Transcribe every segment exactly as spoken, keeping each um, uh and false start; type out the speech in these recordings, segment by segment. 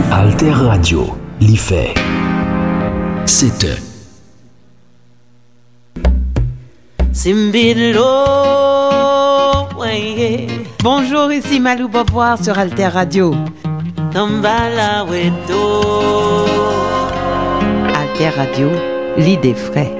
Alter Radio, li fè sèt è. Simbidlo, weye. Bonjour, ici Malou Beauvoir sur Alter Radio. Tambala weto. Alter Radio, l'idée frais.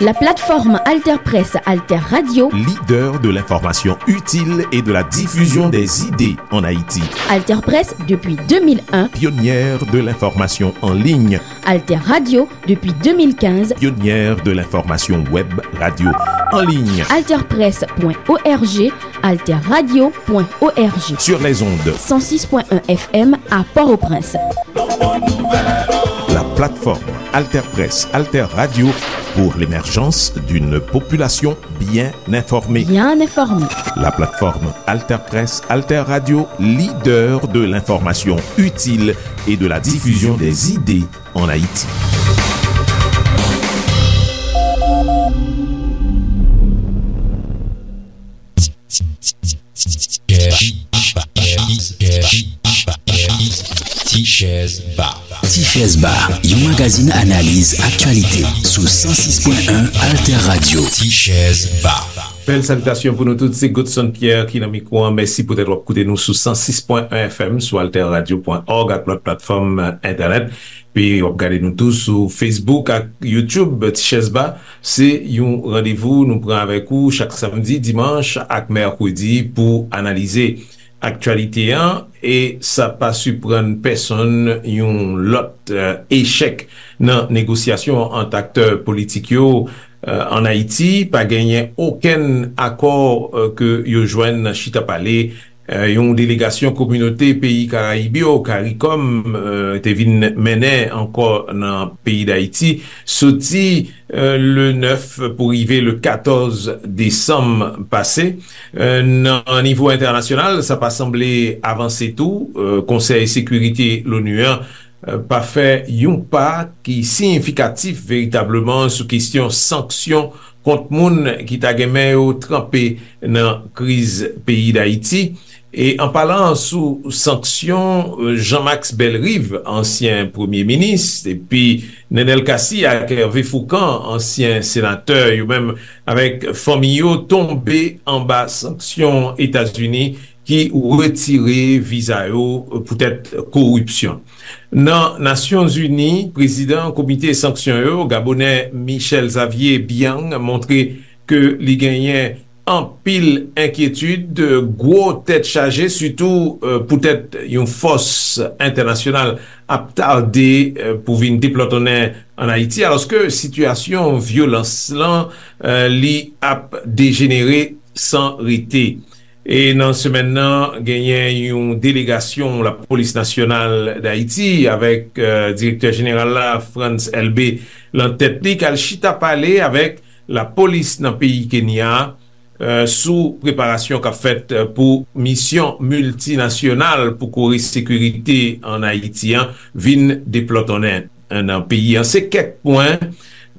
La plateforme Alter Presse, Alter Radio. Leader de l'information utile et de la diffusion des idées en Haïti. Alter Presse depuis deux mille un. Pionnière de l'information en ligne. Alter Radio depuis deux mille quinze. Pionnière de l'information web radio en ligne. Alter Presse point O R G, Alter Radio point O R G. Sur les ondes. Cent six point un F M à Port-au-Prince. La plateforme Alter Presse, Alter Radio pour l'émergence d'une population bien informée. Bien informée. La plateforme Alter Presse, Alter Radio, leader de l'information utile et de la diffusion des idées en Haïti. Ti Chèz Ba. Ti Chèz Ba, yon magazin analiz aktyalite sou san sis pwen en Alter Radio. Ti Chèz Ba. Bèl salitasyon pou nou tout, se Godson Pierre ki nan mikwo an. Mèsi poutèt w ap koute nou sou san sis pwen en F M, sou alter radio pwen org ak lòt platfòm, euh, entènèt. Epi w ap gade nou tou sou Facebook ak YouTube. Ti Chèz Ba, se yon randevou nou pran avèk ou chak samdi, dimanch ak mèkredi pou analize aktyalite an, e sa pa siprann pèsonn, yon lòt, eh, echèk nan negosyasyon ant aktè politik yo, eh, ann Ayiti. Pa genyen okenn akò, eh, ke yo jwenn nan chita pale, eh, yon delegasyon kominote peyi Karayib yo, karikòm, eh, te vin mennen ankò nan peyi Dayiti, soti, eh, le nèf pou rive le katòz desanm pase. Eh, nan nivo entènasyonal, sa pa sanble avanse tou. Eh, Konsèy Sekirite Lonu an, eh, pa fè yon pa ki siyifikatif veritableman sou kesyon sanksyon kont moun ki ta gen men yo tranpe nan kriz peyi Dayiti. E an palan sou sanksyon, eh, Jean-Max Bellerive, ansyen premye minis, epi Nenel Cassy ak Hervé Fourcand, ansyen senatè, yo menm avèk fanmi yo, tonbe anba sanksyon Etazini ki retire viza yo poutèt koripsyon. Nan Nasyonzini, prezidan komite sanksyon yo, Gabonè Michel Xavier Biang, montre ke li genyen anpil enkyetid, gwo tèt chaje, sitou, eh, poutèt yon fòs entènasyonal ap tade, eh, pou vin deplòtonnen ann Ayiti, alòske sitiyasyon vyolans lan, eh, li ap dejenere san rete. E nan semèn nan, genyen yon delegasyon Lapolis Nasyonal Dayiti avèk, eh, direktè jeneral la, Frantz Elbé, lan tèt li, k al chita pale avèk lapolis nan peyi Kenya, eh, sou preparasyon k ap fèt, eh, pou misyon miltinasyonal pou kore sekirite ann Ayiti an vin deplòtonnen, eh, nan peyi an. Se kèk pwen,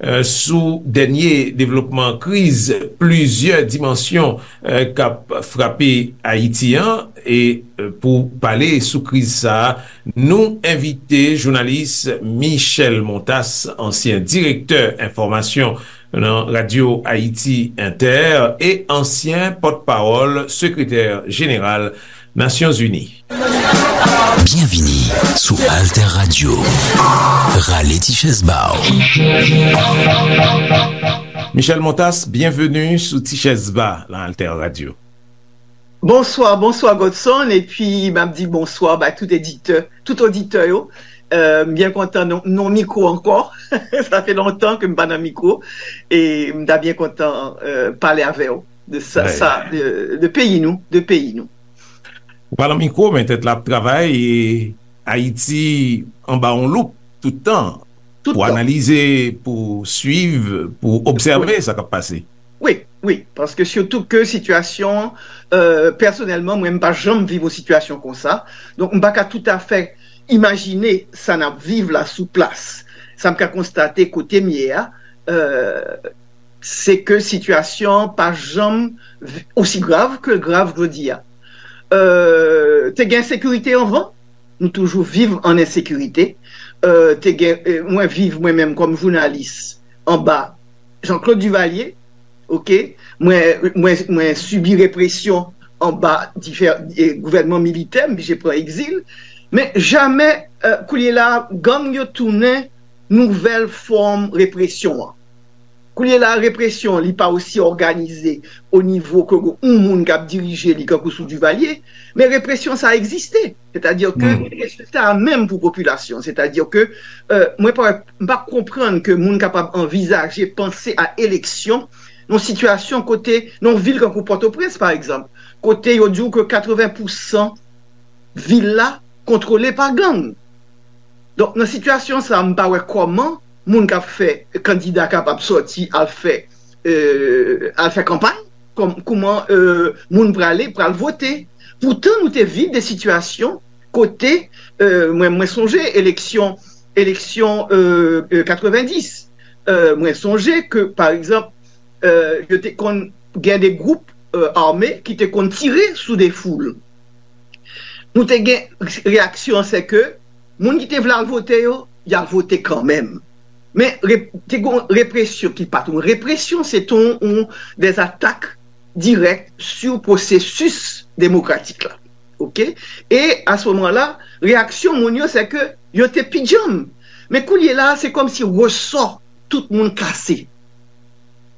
eh, sou dènye devlopman kriz plizyè dimansyon, eh, k ap frape Ayiti an. E, eh, pou pale sou kriz sa a, nou envite jounalis Michel Montas, ansyen direktè enfòmasyon nan Radyo Ayiti Entè e ansyen pòtpawòl sekretè jeneral Nasyonzini. Byenvini sou Alter Radio. Rale ti chèz ba w. Michel Montas, byenveni sou Ti Chèz Ba nan Alter Radio. Bonswa, bonswa Godson, epi m ap di bonswa bay tout editè, tout oditè yo. Euh, m byen kontan nan, nan mikwo ankò. Sa fè lontan ke m pa nan mikwo, e m ta byen kontan, euh, pale avè w de sa, sa, de, de peyi nou, de peyi nou. Ou pa nan mikwo, men tèt la ap travay, e Ayiti anba yon loup tout tan, pou analize, pou swiv, pou obsève sa k ap pase. Wi, wi, paske sitou ke sitiyasyon, euh, pèsonèlman, mwen, m pa janm viv yon sitiyasyon konsa. Donk, m pa ka toutafè imajine sa n ap viv la sou plas. Sa m ka konstate kote m ye a, euh, se ke sitiyasyon an pa janm vi- osi grav ke l grav jodi a. Euh, te gen ensekirite anvan, nou toujou viv an ensekirite. Euh, te gen, euh, mwen viv mwen menm kòm jounalis anba Jean-Claude Duvalier, oke? Mwen, mwen, mwen sibi represyon anba diferan gouvènman militè, m oblije pran egzil. Men jamè, euh, kounye la, gang yo tounen nouvèl fòm represyon an. Kounye la, represyon li pa osi òganize o nivo ke yon moun k ap dirije li kankou sou Duvalier, men represyon sa egziste. Sètadi ke rezilta a menm pou popilasyon. Sètadi ke euh, mwen pa, m pa konprann ke moun kapab anvizaje panse a eleksyon nan sitiyasyon kote, nan yon vil kankou Pòtoprens, pa egzanp, kote yo di w ke katreven pousan vil la kontwole pa gang. Donk, nan sitiyasyon sa, m pa wè kòman moun k ap fè kandida kapab sòti al fè, euh, al fè kanpay, kòm, kouman euh, moun prale, pral vote. Poutan, nou te viv de sitiyasyon kote, euh, mwen, mwen sonje eleksyon, eleksyon euh, euh, katrevendis. Euh, mwen sonje ke, pa egzanp, euh, yo te konn gen de gwoup euh, ame ki te konn tire sou de foul. Nou te gen reyaksyon, se ke moun ki te vle al vote yo, y al vote kanmenm. Men re, te gen represyon ki pa t yon represyon, se te yon, yon des atak dirèk sou pwosesis demokratik la. Oke? E a se moman la, reyaksyon moun yo, se ke yo te pi djanm. Men kounye la, se kòmsi resò tout moun kase.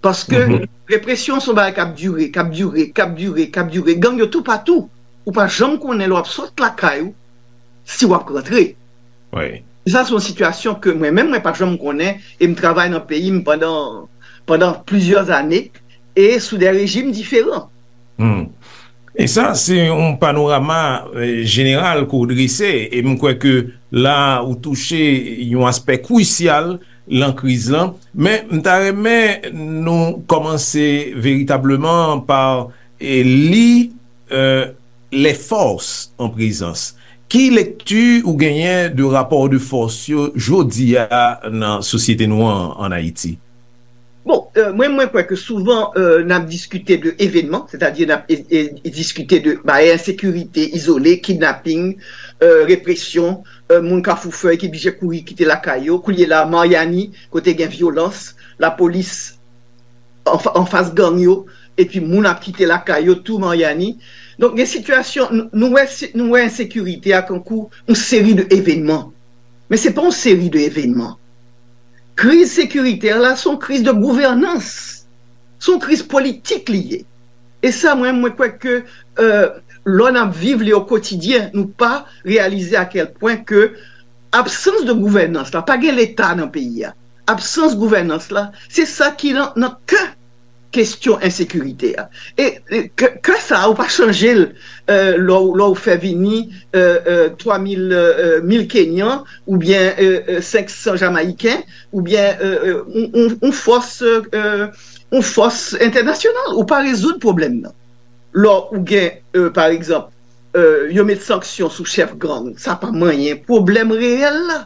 Paske represyon se yon bagay k ap dire, k ap dire, k ap dire, k ap dire. Gang yo toupatou. Ou pa janm konnen lè w ap sot lakay ou, si w ap rantre. Sa se yon sitiyasyon ke mwen menm, mwen pa janm konnen, e m travay nan peyi m pandan, pandan plizyè ane, e sou de rejim diferan. E sa se yon panorama euh, jeneral ke w drese, e m kwè ke la ou touche yon aspè krisyal lan kriz lan. Men m ta renmen nou kòmanse veritableman pa e, li euh, les forces en présence. Ki lekti ou genyen de rapò de fòs yo jodi a nan sosyete nou an an Ayiti? Bon, euh, mwen, mwen kwè ke souvan euh, n ap diskite de evenman, sètadi n ap e, e, diskite de bagay ensekirite izole, kidnaping, euh, represyon, euh, moun Kafou Fèy ki blije kouri kite lakay yo. Kounye la, Maryani, kote gen vyolans, lapolis anfas gang yo, epi moun ap kite lakay yo tou Maryani. Donk, gen sitiyasyon, nou wè, nou wè ensekirite a kankou yon seri de evenman. Men se pa yon seri de evenman. Kriz sekiritè la se yon kriz de gouvènans. Se yon kriz politik li ye. E sa, mwen, mwen kwè ke euh, lè n ap viv li o kotidyen, nou pa reyalize a kèl pwen ke absans de gouvènans la, pa gen leta nan peyi a, absans gouvènans la, se sa ki nan, nan kè kesyon ensekirite a. E ke, ke sa a, ou pa chanje l euh, lè w fè vini euh, euh, twa mil, euh, mil Kenyan oubyen euh, euh, senk san Jamayiken oubyen euh, euh, on, on, on fòs euh, on fòs entènasyonal. Ou pa rezoud pwoblèm nan. Lè ou gen, euh, pa egzanp, euh, yo met sanksyon sou chèf gang, sa pa manyen pwoblèm reyèl la.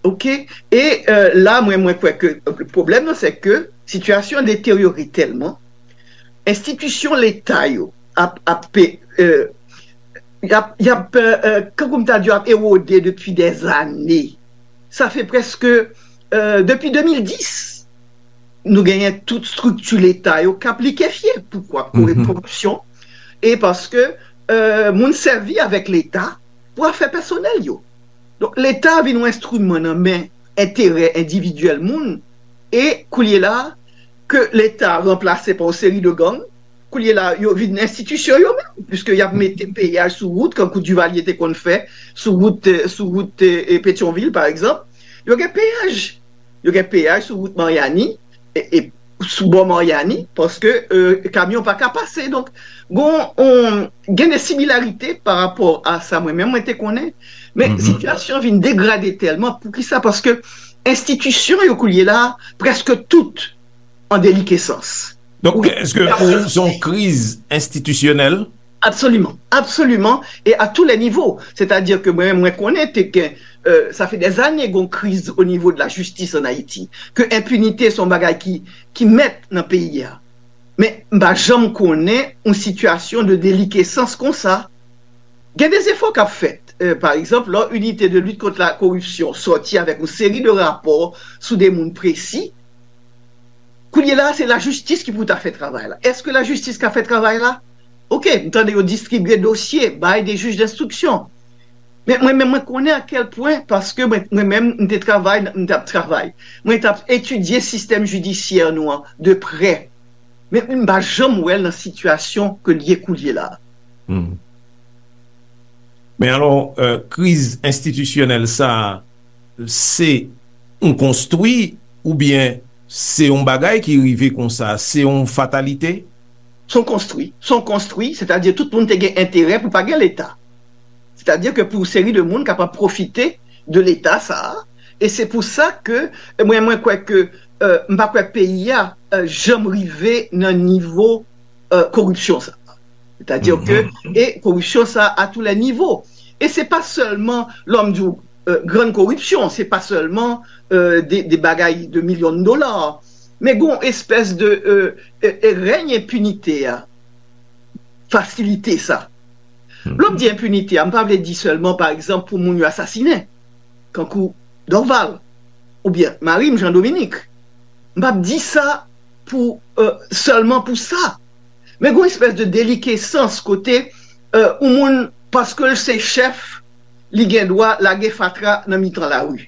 Oke? E euh, la, mwen, mwen kwè ke pwoblèm nan, se ke sitiyasyon an deteryore tèlman, enstitisyon leta yo ap, ap, euh, y ap, y ap euh, euh, kankou m ta di, ap ewode depi dèzane. Sa fè prèske euh, depi de mil dis, nou genyen tout estrikti leta yo k ap likefye. Poukwa? Pou koripsyon. E paske euh, moun sèvi avèk leta pou afè pèsonèl yo. Donk, leta vin yon enstriman nan men enterè endividyèl moun, e kounye la, ke leta ranplase pa yon seri de gang, kounye la, yo vin enstitisyon yo menm, piske y ap mete peyaj sou wout, kankou Duvalier te konn fè, sou wout, euh, sou wout euh, Petyonvil, pa egzanp. Yo gen peyaj. Yo gen peyaj sou wout Maryani, e, e sou bò Maryani, paske euh, kamyon pa ka pase. Donk, gon, on, gen de similarite pa rapò a sa mwen menm mwen te konnen, men sitiyasyon vin degrade tèlman. Poukisa? Paske enstitisyon yo kounye la, prèske tout an delikesans. Donk, èske pou ou se yon kriz enstitisyonèl? Absoliman, absoliman, e a tou lè nivo. Sètadi ke mwen, mwen konnen te gen, euh, sa fè dèzane gon kriz o nivo de la jistis an Ayiti, ke enpinite se yon bagay ki, ki mèt nan peyi a. Men m pa janm konnen yon sitiyasyon de delikesans konsa. Gen de zefò k ap fèt. Euh, pa egzanp, lè Unité de lutte contre la corruption sòti avèk yon seri de rapò sou de moun presi, kounye la, se lajistis ki pou ta fè travay la. Èske lajistis ka fè travay la? Oke, m tande yo distribye dosye, bay de jij denstriksyon. Men mwen menm, mwen konnen a kèl pwen, paske mwen, mwen menm, m te travay, m t ap travay. Mwen t ap etidye sistèm jidisyè nou an de prè. Men m pa janm wè l nan sitiyasyon ke l ye koulye la. Men alò, euh, kriz enstitisyonèl sa a, se yon konstwi oubyen se yon bagay ki rive konsa, se yon fatalite? Se yon konstwi, se yon konstwi, sètadi tout moun te gen enterè pou pa gen Leta. Sètadi ke pou seri de moun kapab pwofite de Leta sa a, e se pou sa ke mwen, mwen kwè ke, euh, m pa kwè peyi a, euh, janm rive nan nivo, euh, koripsyon sa a. Sètadi ke, e koripsyon sa a a tou lè nivo. E se pa sèlman, lè m di w, euh, grann koripsyon, se pa sèlman, euh, de, de bagay de milyon de dola, men gon espès de, euh, euh, euh, rèny enpinite a fasilite sa. Lè m di enpinite a, m pa vle di sèlman, pa egzanp, pou moun yo asasinen, kankou Dorval, oubyen mari m, Jean Dominique. M p ap di sa pou, euh, sèlman pou sa. Men gon espès de delikesans kote, euh, yon moun, paske l se chèf, li gen dwa lage fatra nan mitan lari.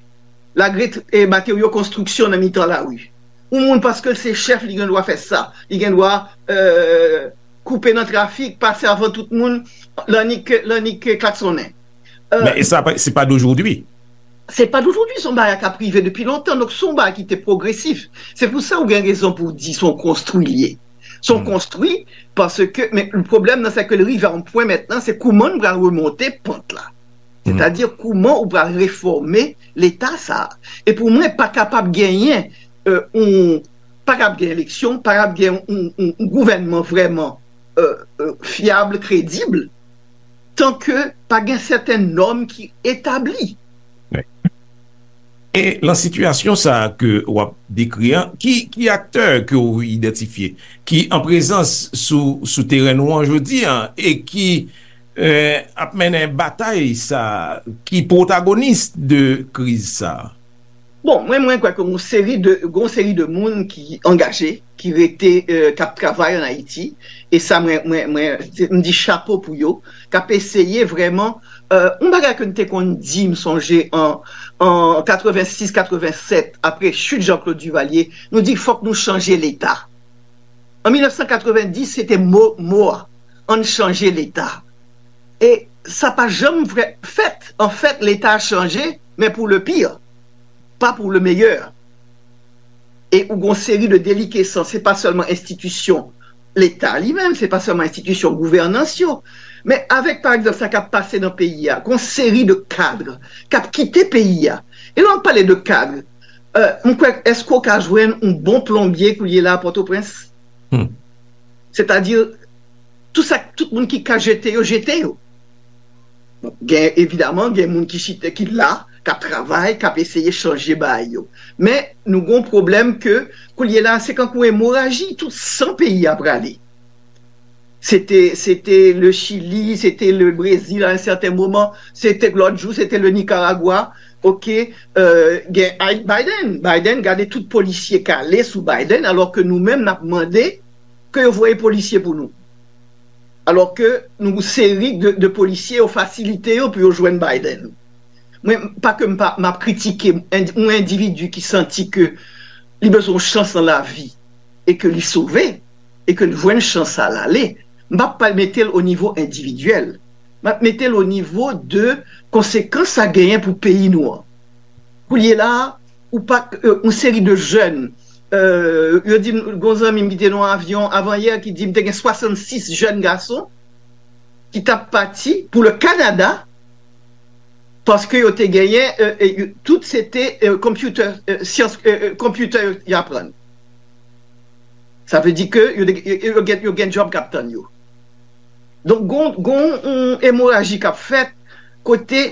Lage, eh, materyo konstriksyon nan mitan lari. Yon moun, paske l se chèf, li gen dwa fè sa. Li gen dwa, euh, koupe nan trafik, pase avan tout moun, lannik, lannik klaksonnen. Men e sa, se pa dojodwi. Se pa dojodwi, se yon bagay k ap rive depi lontan. Donk, se yon bagay ki te pwogresif. Se pou sa ou gen rezon pou w di se yon konstwi l ye. Se yon konstwi, paske, men pwoblèm nan, se ke l rive a yon pwen mentnan, se kouman n pral remonte pant la. Sètadi, kouman ou pral refòme Leta sa a. E pou mwen, pa kapab genyen, euh, yon, pa kapab gen eleksyon, pa kapab gen yon, yon, yon gouvènman vrèman, euh, euh, fyab, kredib, tan ke pa gen sèten nòm ki etabli. E lan sitiyasyon sa a ke w ap dekri an, ki, ki aktè ke w idantifye ki an prezans sou, sou teren nou an jodi an e ki, euh, ap mennen batay sa a, ki pwotagonis de kriz sa a? Bon, mwen, mwen kwè ke gon seri de, gon seri de moun ki angaje, ki rete, euh, k ap travay an Ayiti, e sa mwen, mwen, mwen, se, m di chapo pou yo, k ap eseye vrèman, euh, yon bagay ke n te konn di, m sonje, an, an katrevensis, katrevennsèt, apre chit Jean-Claude Duvalier, nou di fòk nou chanje Leta. An mil nèf san katrevenndis, se te mo, mo a, ann chanje Leta. E sa pa janm vrè, fèt. Anfèt, Leta a chanje, men pou le pire, pa pou le meilleur. E ou gon seri de delikesans, se pa sèlman enstitisyon Leta li menm, se pa sèlman enstitisyon gouvènans yo, men avèk, pa egzanp, sa k ap pase nan peyi a, gon seri de kad k ap kite peyi a. E lè w ap pale de kad, euh, m kwè, èske w ka jwenn yon bon plonbye koulye la a Pòtoprens? Sètadi, tout sa, tout moun ki ka jete yo, jete yo. Bon, gen, evidaman, gen moun ki chita, ki la, k ap travay, k ap eseye chanje bagay yo. Men, nou gon pwoblèm ke, koulye la, se kankou emoraji, tout san peyi a prale. Se te, se te le Chili, se te le Brezil a yon sèten moman, se te lòt jou, se te le Nicaragua. Oke, euh, gen Biden. Biden, gade tout polisye k ale sou Biden, alò ke nou menm n ap mande ke yo voye polisye pou nou. Alò ke nou seri de, de polisye yo fasilite yo pou yo jwenn Biden. Mwen, pa ke m pa, m ap kritike yon endividi ki santi ke li bezwen yon chans nan lavi e ke li sove e ke l jwenn chans sa l ale, m p ap pa mete l o nivo endividyèl. M ap mete l o nivo de konsekans sa genyen pou peyi nou an. Koulye la a, ou pa, euh, yon seri de jèn, euh, yo di m, gon zanmi m ki te nan yon avyon avan yè ki di m te gen swasannsis jèn gason ki t ap pati pou le Kanada paske yo te genyen, euh, euh, tout se te, euh, computer, euh, syans, euh, euh, computer yo, yo aprann. Sa vle di ke yo, yo, yo gen, yo gen djòb k ap tann yo. Donk, gon, gon yon emoraji k ap fèt kote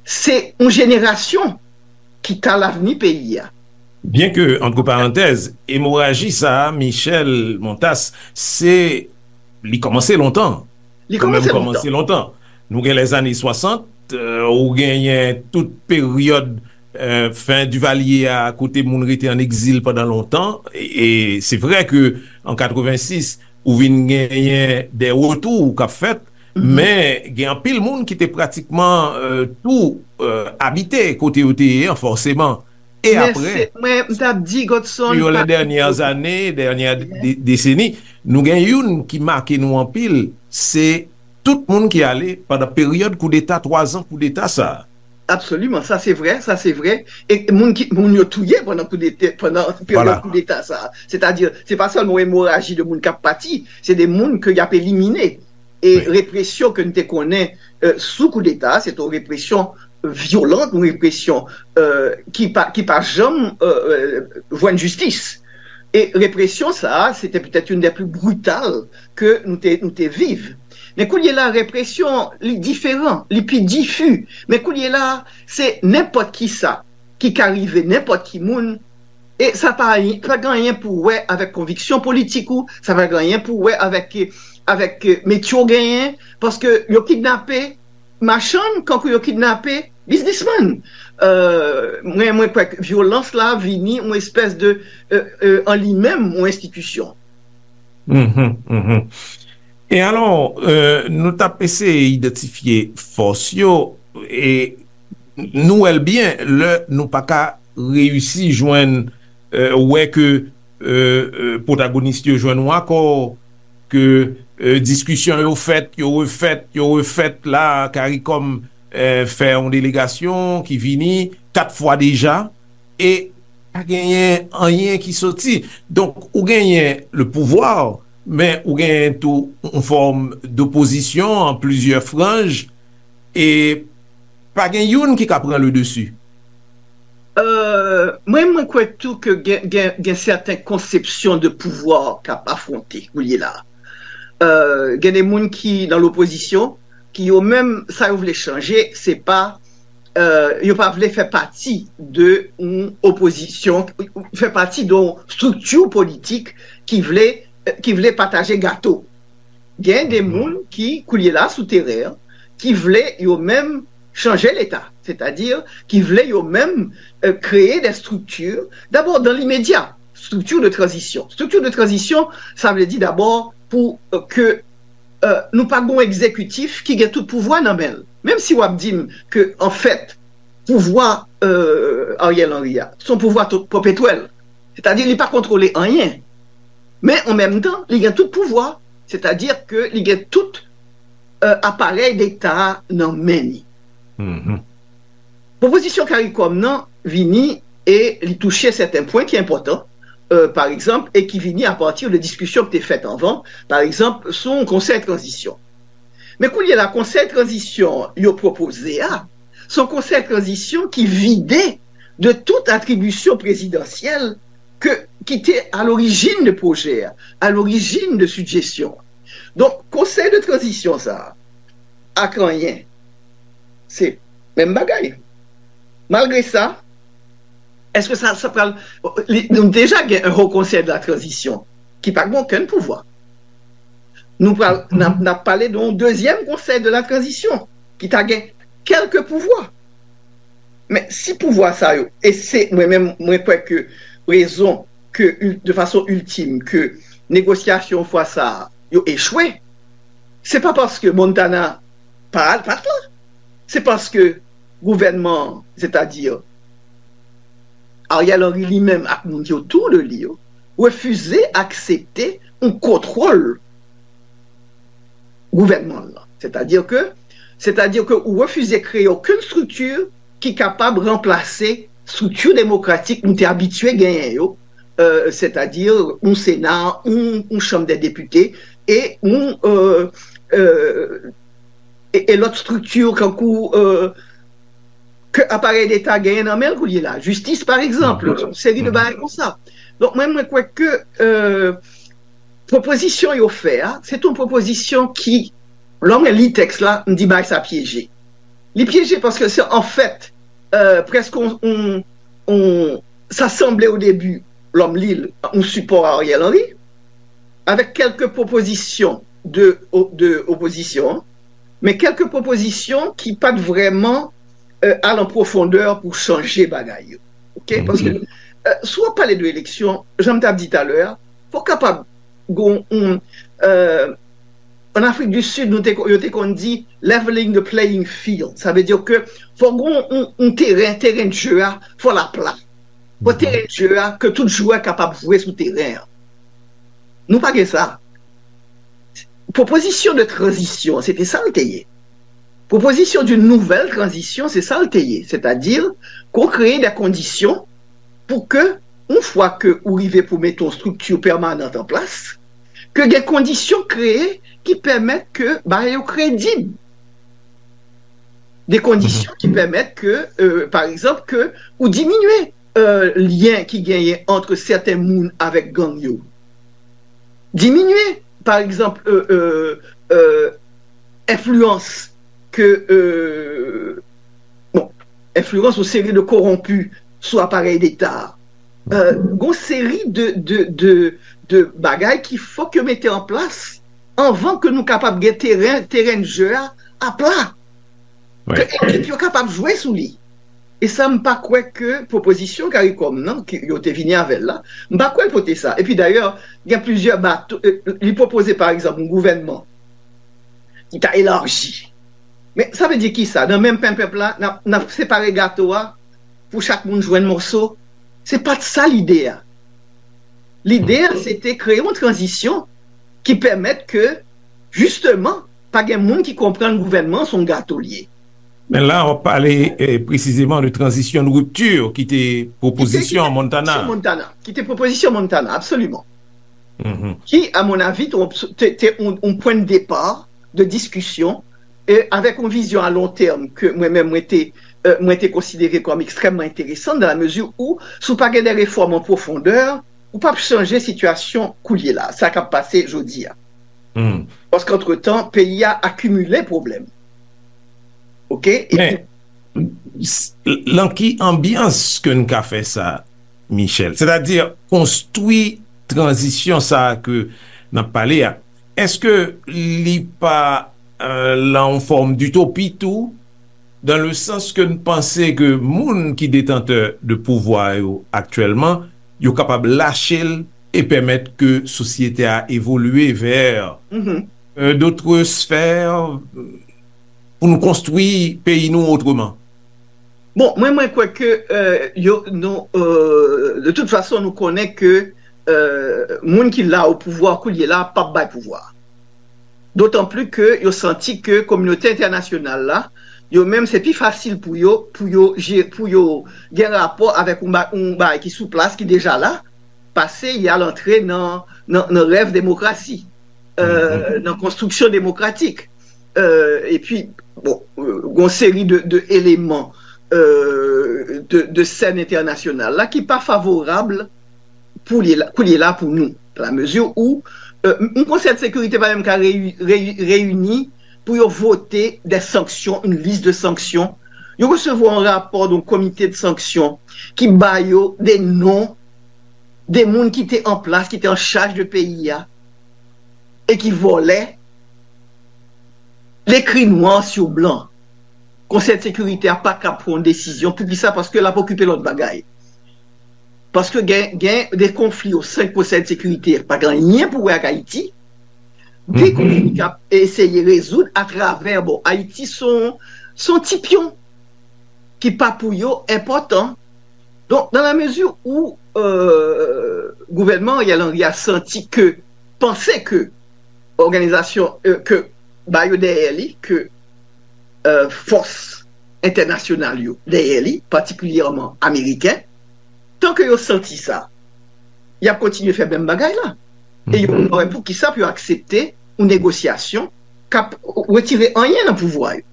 se yon jenerasyon ki ka lavni peyi a. Byen ke, antre parantèz, emoraji sa a, Michel Montas, se, li kòmanse lontan. Li kòmanse lontan. Kòmanse lontan. Nou gen lèzane swasant, euh, ou genyen tout peryòd, euh, fen Divalye a, kote moun rete an egzil pandan lontan. E, e se vre ke an katrevensis, ou vin genyen de retou k ap fèt, men gen anpil moun ki te pratikman, euh, tou, euh, abite kote yo te ye an, fòseman. E apre, mwen, m t ap di, Godson, sur les dernières années, dernière dé-, décennie, nou gen youn ki make nou anpil, se tout moun ki ale pandan peryòd koudeta, twa zan koudeta sa a. Absoliman, sa se vrè, sa se vrè. E moun ki, moun yo touye pandan koudeta, pandan peryòd koudeta sa a. Sètadi, se pa sèlman yon emoraji de moun k ap pati, se de moun ke y ap elimine. E represyon ke n te konnen, euh, sou koudeta, se te yon represyon vyolan, yon represyon, euh, ki pa, ki pa janm, euh, euh, jwenn jistis. E represyon sa a, se te petèt youn dè pli brital ke nou te, nou te viv. Men kounye la, represyon, li diferan, li pi difi. Men kounye la, se nenpòt ki sa ki ka rive nenpòt ki moun, e sa pa, pa gen anyen pou wè avèk konviksyon politik ou, sa pa gen anyen pou wè avèk, avèk metye w genyen, paske yo kidnape machann, kankou yo kidnape biznismann. Euh, mwen, mwen kwè ke vyolans la vini yon espès de, euh, euh, an li menm, yon enstitisyon. Mhm, mhm. E alò, euh, nou t ap eseye idantifye fòs yo, e nou wè l byen, lè nou pa ka reyisi jwenn, euh, wè ke, euh, euh, pwotagonis yo jwenn yon akò, ke, euh, diskisyon yo fèt, yo refèt, yo refèt la, CARICOM, euh, fè yon delegasyon ki vini kat fwa deja, e pa genyen anyen ki soti. Donk, ou genyen le pouvwa, men ou genyen tou yon fòm dopozisyon an plizyè franj, e pa gen youn ki ka pran le desi. Euh, mwen, mwen kwè tou ke gen, gen, gen sèten konsepsyon de pouvwa k ap afwonte kounye la. Euh, gen de moun ki nan lopozisyon, ki yo menm, sa yo vle chanje, se pa, euh, yo pa vle fè pati de yon opozisyon, fè pati de yon estrikti politik ki vle, ki vle pataje gato. Gen de moun ki, kounye la, sou teren an, ki vle yo menm chanje Leta, sètadi ki vle yo menm, euh, kreye de estrikti, dabò dan limedya, estrikti de tranzisyon. Estrikti de tranzisyon, sa vle di dabò pou, euh, ke, euh, nou pa gon egzekitif ki gen tout pouvwa nan men l. Menm si w ap di m ke, anfèt, pouvwa, euh, Ariel Henry a, se yon pouvwa to-, pèpetwèl. Sètadi, li pa kontwole anyen. Men, an menm tan, li gen tout pouvwa. Sètadi ke li gen tout, euh, aparèy Leta a nan men li. Mhm. Pwopozisyon CARICOM nan vini e li touche sèten pwen ki enpòtan, euh, pa egzanp, e ki vini apati de diskisyon ki te fèt anvan, pa egzanp, sou yon konsèy tranzisyon. Men kounye la, konsèy tranzisyon yo pwopoze a, se yon konsèy tranzisyon ki vide de tout atribisyon prezidansyèl ke, ki te a lorijin de pwojè a, a lorijin de sijesyon an. Donk, konsèy de tranzisyon sa a, ak anyen, se menm bagay. Malgre sa, èske sa, sa pral, li, nou deja gen un Haut Conseil de la Transition ki pa gen okenn pouvwa. Nou pral, n ap, n ap pale de yon dezyèm Conseil de la Transition ki ta gen kèlke pouvwa. Men si pouvwa sa yo, e se mwen menm, mwen kwè ke rezon ke, de fason iltim, ke negosyasyon fwa sa a, yo echwe, se pa paske Montana pa al, pa t la. Se paske gouvènman an, sètadi Ariel Henry li menm ak moun ki otou de li yo, refize aksepte yon kontwòl gouvènman an. Sètadi ke, sètadi ke ou refize kreye okenn estrikti ki kapab ranplase estrikti demokratik nou te abitye genyen yo, euh, sètadi yon Sena, yon, yon Chanm dè Depite, e yon, euh, euh, e, e lòt estrikti kankou, euh, ke aparèy Leta genyen nan men l kounye la. Jistis, pa egzanp, yon seri de bagay konsa. Donk, mwen, mwen kwè ke, euh, pwopozisyon yo fè a, se yon pwopozisyon ki Lè mwen li tèks la, m di bagay sa pyeje. Li pyeje paske se anfèt, euh, prèske on, on, on, sa sanble o debi, lè m li l, on sipò a Ariel Henry, avèk kèlke pwopozisyon de, de opozisyon, men kèlke pwopozisyon ki pa t vrèman euh, al an pwofondè pou chanje bagay yo. Ok? Paske euh, si w ap pale de eleksyon, jan m t ap di talè a, fò w kapab gon, on, euh, an Afrik di Sid, nou te, yo te konn di leveling the playing field. Sa vle di ke fò gon on, on teren, teren de jeu a, fò l apla. Fò teren de jeu a, ke tout jwè kapab jwe sou teren an. Nou pa gen sa. Pwopozisyon de tranzisyon, se te sa l te ye. Pwopozisyon d'une nouvelle transition, se sa l te ye. Sètadi, ke w kreye de kondisyon pou ke, yon fwa ke ou rive pou mete yon strikti pèmanan an plas, ke gen kondisyon kreye ki pèmèt ke bagay yo kredib. De kondisyon ki pèmèt ke, euh, pa egzanp, ke ou diminye euh, lyen ki genyen ant sèten moun avèk gang yo diminye. Pa egzanp, euh, euh, euh, enfliyans ke, euh, bon, enfliyans yon seri de kowonpi sou aparèy deta a. Euh, gon seri de, de, de, de bagay ki fòk yo mete an plas anvan ke nou kapab gen teren, teren de jeu a apla. Ke ekip yo kapab jwe sou li. E sa, m pa kwè ke pwopozisyon CARICOM nan, ke yo te vini avè l la, m pa kwè l pote sa. Epi dayè, gen plizyè bato, euh, li pwopoze, pa egzanp, yon gouvènman ki ta elaji. Men sa vle di ki sa? Nan menm pen pèp la, n ap, n ap separe gato a pou chak moun jwenn moso? Se pa t sa lide a. Lide a, se te kreye yon tranzisyon ki pèmèt ke, jisteman, pa gen moun ki konprann gouvènman se yon gato l ye. Men la, w ap pale eh, presizeman de tranzisyon de ripti ki te pwopozisyon Montana. Ki te pwopozisyon Montana, ki te pwopozisyon Montana, absoliman. Ki, a mon avi, te, te, te yon, yon pwen de depa de diskisyon e avèk yon vizyon a lon tèm ke mwen menm mwen te, euh, mwen te konsidere kòm ekstrèmman enteresan, dan la mezi ou, si w pa gen de refòm an pwofondè, ou p ap chanje sitiyasyon koulye la, sa k ap pase jodi a. Paske antretan, peyi a akimile pwoblèm. Ok? Epi, s- lan ki anbyans ke n ka fè sa, Michel? Sètadi konstwi tranzisyon sa a ke n ap pale a, èske li pa euh, lan yon fòm ditopi tou? Dan le sans ke n panse ke moun ki detantè de pouvwa yo aktyèlman, yo kapab lache l e pèmèt ke sosyete a evolye vè euh, d'autres sphères pou nou konstwi peyi nou otreman. Bon, mwen, mwen kwè ke euh, yo, nou, euh, de tout fason, nou konnen ke euh, moun ki la o pouvwa koulye la p ap bay pouvwa. Dotan pli ke yo santi ke kominote entènasyonal la, yo menm se pi fasil pou yo, pou yo, pou yo gen rapò avèk yon bagay ki sou plas, ki deja la, pase y al antre nan, nan, nan rèv demokrasi, euh, nan konstriksyon demokratik. Euh, epi, bon, euh, gon seri de, de eleman euh, de, de sèn entènasyonal la ki pa favorab pou li la, pou li la pou nou. La mezi ou euh, yon konsèy de sekirite pa menm ka reyi- reyi- reyini pou yo vote de sanksyon, yon lis de sanksyon. Yo resevwa yon rapò de yon komite de sanksyon ki ba yo de non de moun ki te an plas, ki te an chaj de peyi a e ki vòlè l ekri nwa sou blan. Konsèy de sekirite a pa ka pran yon desizyon. Poukisa? Paske l ap okipe lòt bagay. Paske gen, gen de konfli o sen konsèy de sekirite pa gen anyen pou wè ak Ayiti. De konfli k ap eseye rezoud atravè, bon, Ayiti se yon, se yon ti pyon ki pa pou yo enpòtan. Donk, dans la mesure où euh, gouvènman Ariel Henry a santi ke, panse ke òganizasyon euh, ke ba yo dèyè li, ke euh, fòs entènasyonal yo dèyè li, patikilyèman ameriken, tan ke yo santi sa, y ap kontinye fè menm bagay la. E yo pa wè poukisa pou yo aksepte yon negosyasyon k ap retire anyen nan pouvwa yo.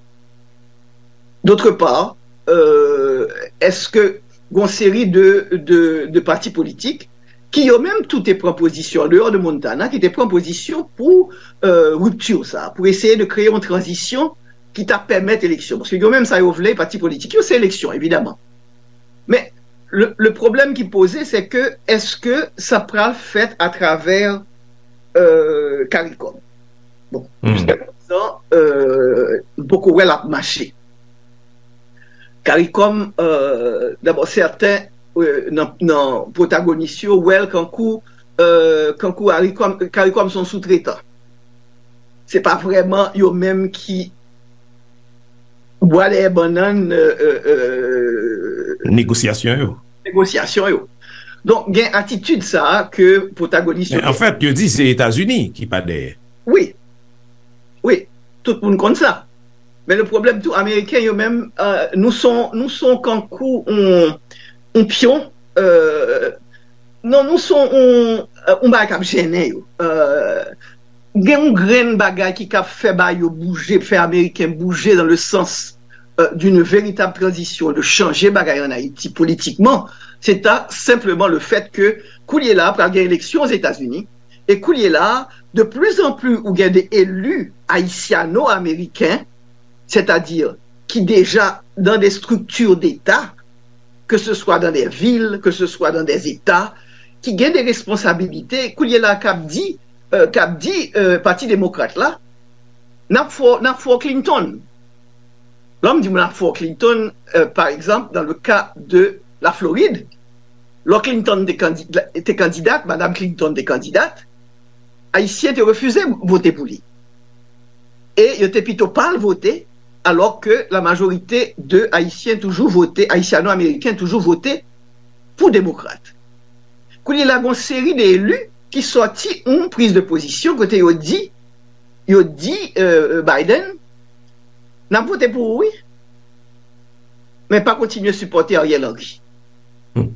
D'autre part, euh, èske gon seri de, de, de pati politik ki yo menm tou te pran pozisyon, an deyò de Montana, ki te pran pozisyon pou euh, ripti sa, pou eseye de kreye yon tranzisyon ki ta pèmèt eleksyon. Paske yo menm sa yo vle, pati politik yo, se eleksyon, evidaman. Men, le, le pwoblèm ki poze, se ke èske sa pral fèt atravè euh, CARICOM? Bon, hmm. Jiska prezan, euh, m poko wè l ap mache. CARICOM, euh, dabò, sèten euh, nan, nan pwotagonis yo, wè l kankou, euh, kankou CARICOM, CARICOM se yon soutretan. Se pa vrèman yo menm ki bwa dèyè bannann euh, euh, euh, negosyasyon yo. Negosyasyon yo. Donk, gen atitid sa a ke pwotagonis yo. Men anfèt, yo di se Etazini ki pa dèyè. Wi. Wi, tout moun konn sa. Men le pwoblèm tou, Ameriken yo menm, euh, nou son, nou son kankou on, on pyon, euh, non, nou son on, euh, on bagay k ap jennen yo. Euh, gen yon grenn bagay ki ka fè ba yo bouje, fè Ameriken bouje dans le sens euh, d'une véritable transition, de chanje bagay an Ayiti politikman, se ta senpleman le fèt ke koulye la pral gen eleksyon Ozetazini, e koulye la, de plus en plus ou gen de eli ayisyano-ameriken, sètadi ki deja dans des structures d'État, que ce soit dans des villes, que ce soit dans des États, ki gen de responsabilite, koulye la k ap di, euh, k ap di euh, Pati Demokrat la, n ap fò, n ap fò Clinton. Lè m di moun ap fò Clinton, euh, pa egzanp, dans le cas de la Floride, lè Clinton te, kandi, te kandidat, Madam Clinton te kandidat, Ayisyen te refize vote pou li. E yo te pito pa al vote, alò ke la majorite de Ayisyen toujou vote, Ayisyano-Ameriken toujou vote pou Demokrat. Kounye la, gen yon seri de eli ki sòti yon priz de pozisyon kote yo di, yo di euh, Biden, n ap vote pou ou, wi, men pa kontinye sipòte Ariel Henry. Hmm.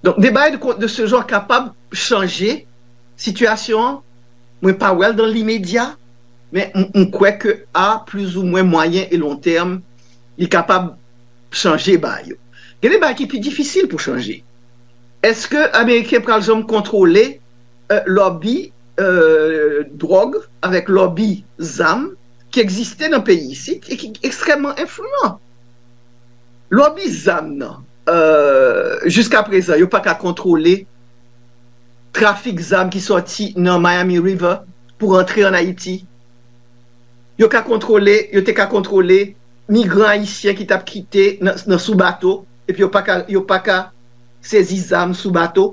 Donk, de bagay de, de se jan kapab chanje sitiyasyon an. Mwen pa wè l dans l'immédiat, men m, m kwè ke a plus ou moins moyen et long terme, li kapab chanje bagay yo. Gen de bagay ki pi difisil pou chanje. Èske Ameriken pral janm kontwole euh, lòbi euh, dwòg avèk lòbi zam ki egziste nan peyi isit e ki ekstrèmman enfliyan? Lòbi zam nan, euh, jiska prezan, yo pa ka kontwole trafik zam ki sòti nan Miami River pou rantre an Ayiti. Yo ka kontwole, yo te ka kontwole migran ayisyen ki t ap kite nan, nan sou bato, epi yo pa ka, yo pa ka sezi zam sou bato.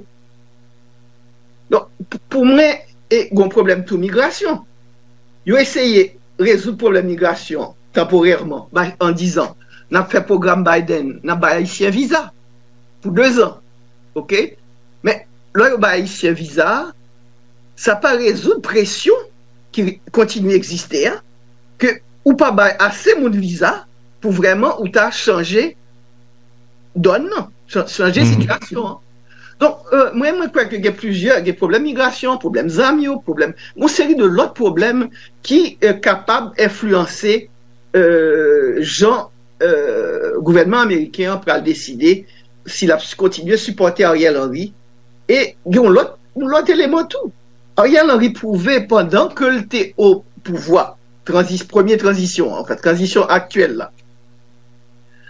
Donk, pou mwen, e gen yon pwoblèm tou migrasyon. Yo eseye rezoud pwoblèm migrasyon tanporèman, an dizan, n ap fè pwogram Biden, n ap bay Ayisyen viza pou dezan. Oke? Men, lè yo bay Ayisyen viza, sa pa rezoud presyon ki kontinye egziste a, ke ou pa bay ase moun viza pou vrèman ou ta chanje dòn nan, chanje sitiyasyon an. Donk, euh, mwen, mwen kwè ke gen plizyè, gen pwoblèm migrasyon, pwoblèm zam yo, pwoblèm, yon seri de lòt pwoblèm ki euh, kapab enfliyanse euh, jan euh, gouvènman ameriken an pral deside si l ap kontinye sipòte Ariel Henry. E gen yon lòt, yon lòt eleman tou. Ariel Henry pwouve pandan ke l te o pouvwa, tranzis, premye tranzisyon an, anfèt, tranzisyon aktyèl la,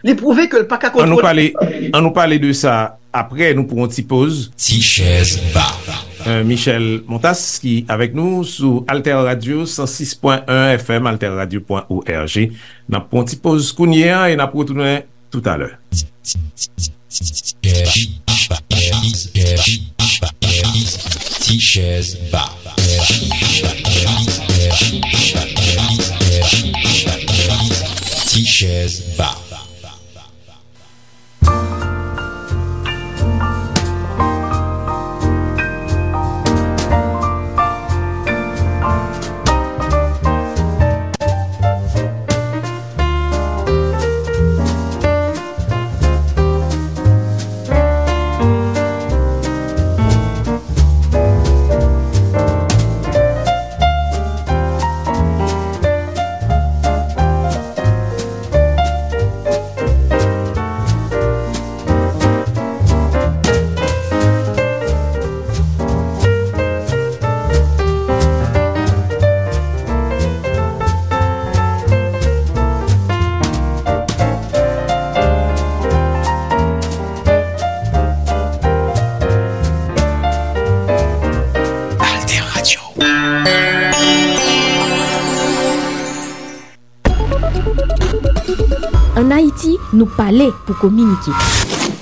li pwouve ke l pa ka kontwole. An nou pale, an nou pale de sa apre, nou pran yon ti poz. Ti chèz ba. Euh, Michel Montas ki avèk nou sou Alter Radio san sis pwen en F M, alterradio pwen org. N ap pran yon ti poz kounye a e n ap retounen toutalè. Ti chèz ba. Ti chèz ba. Ayiti, nou pale pou kominike.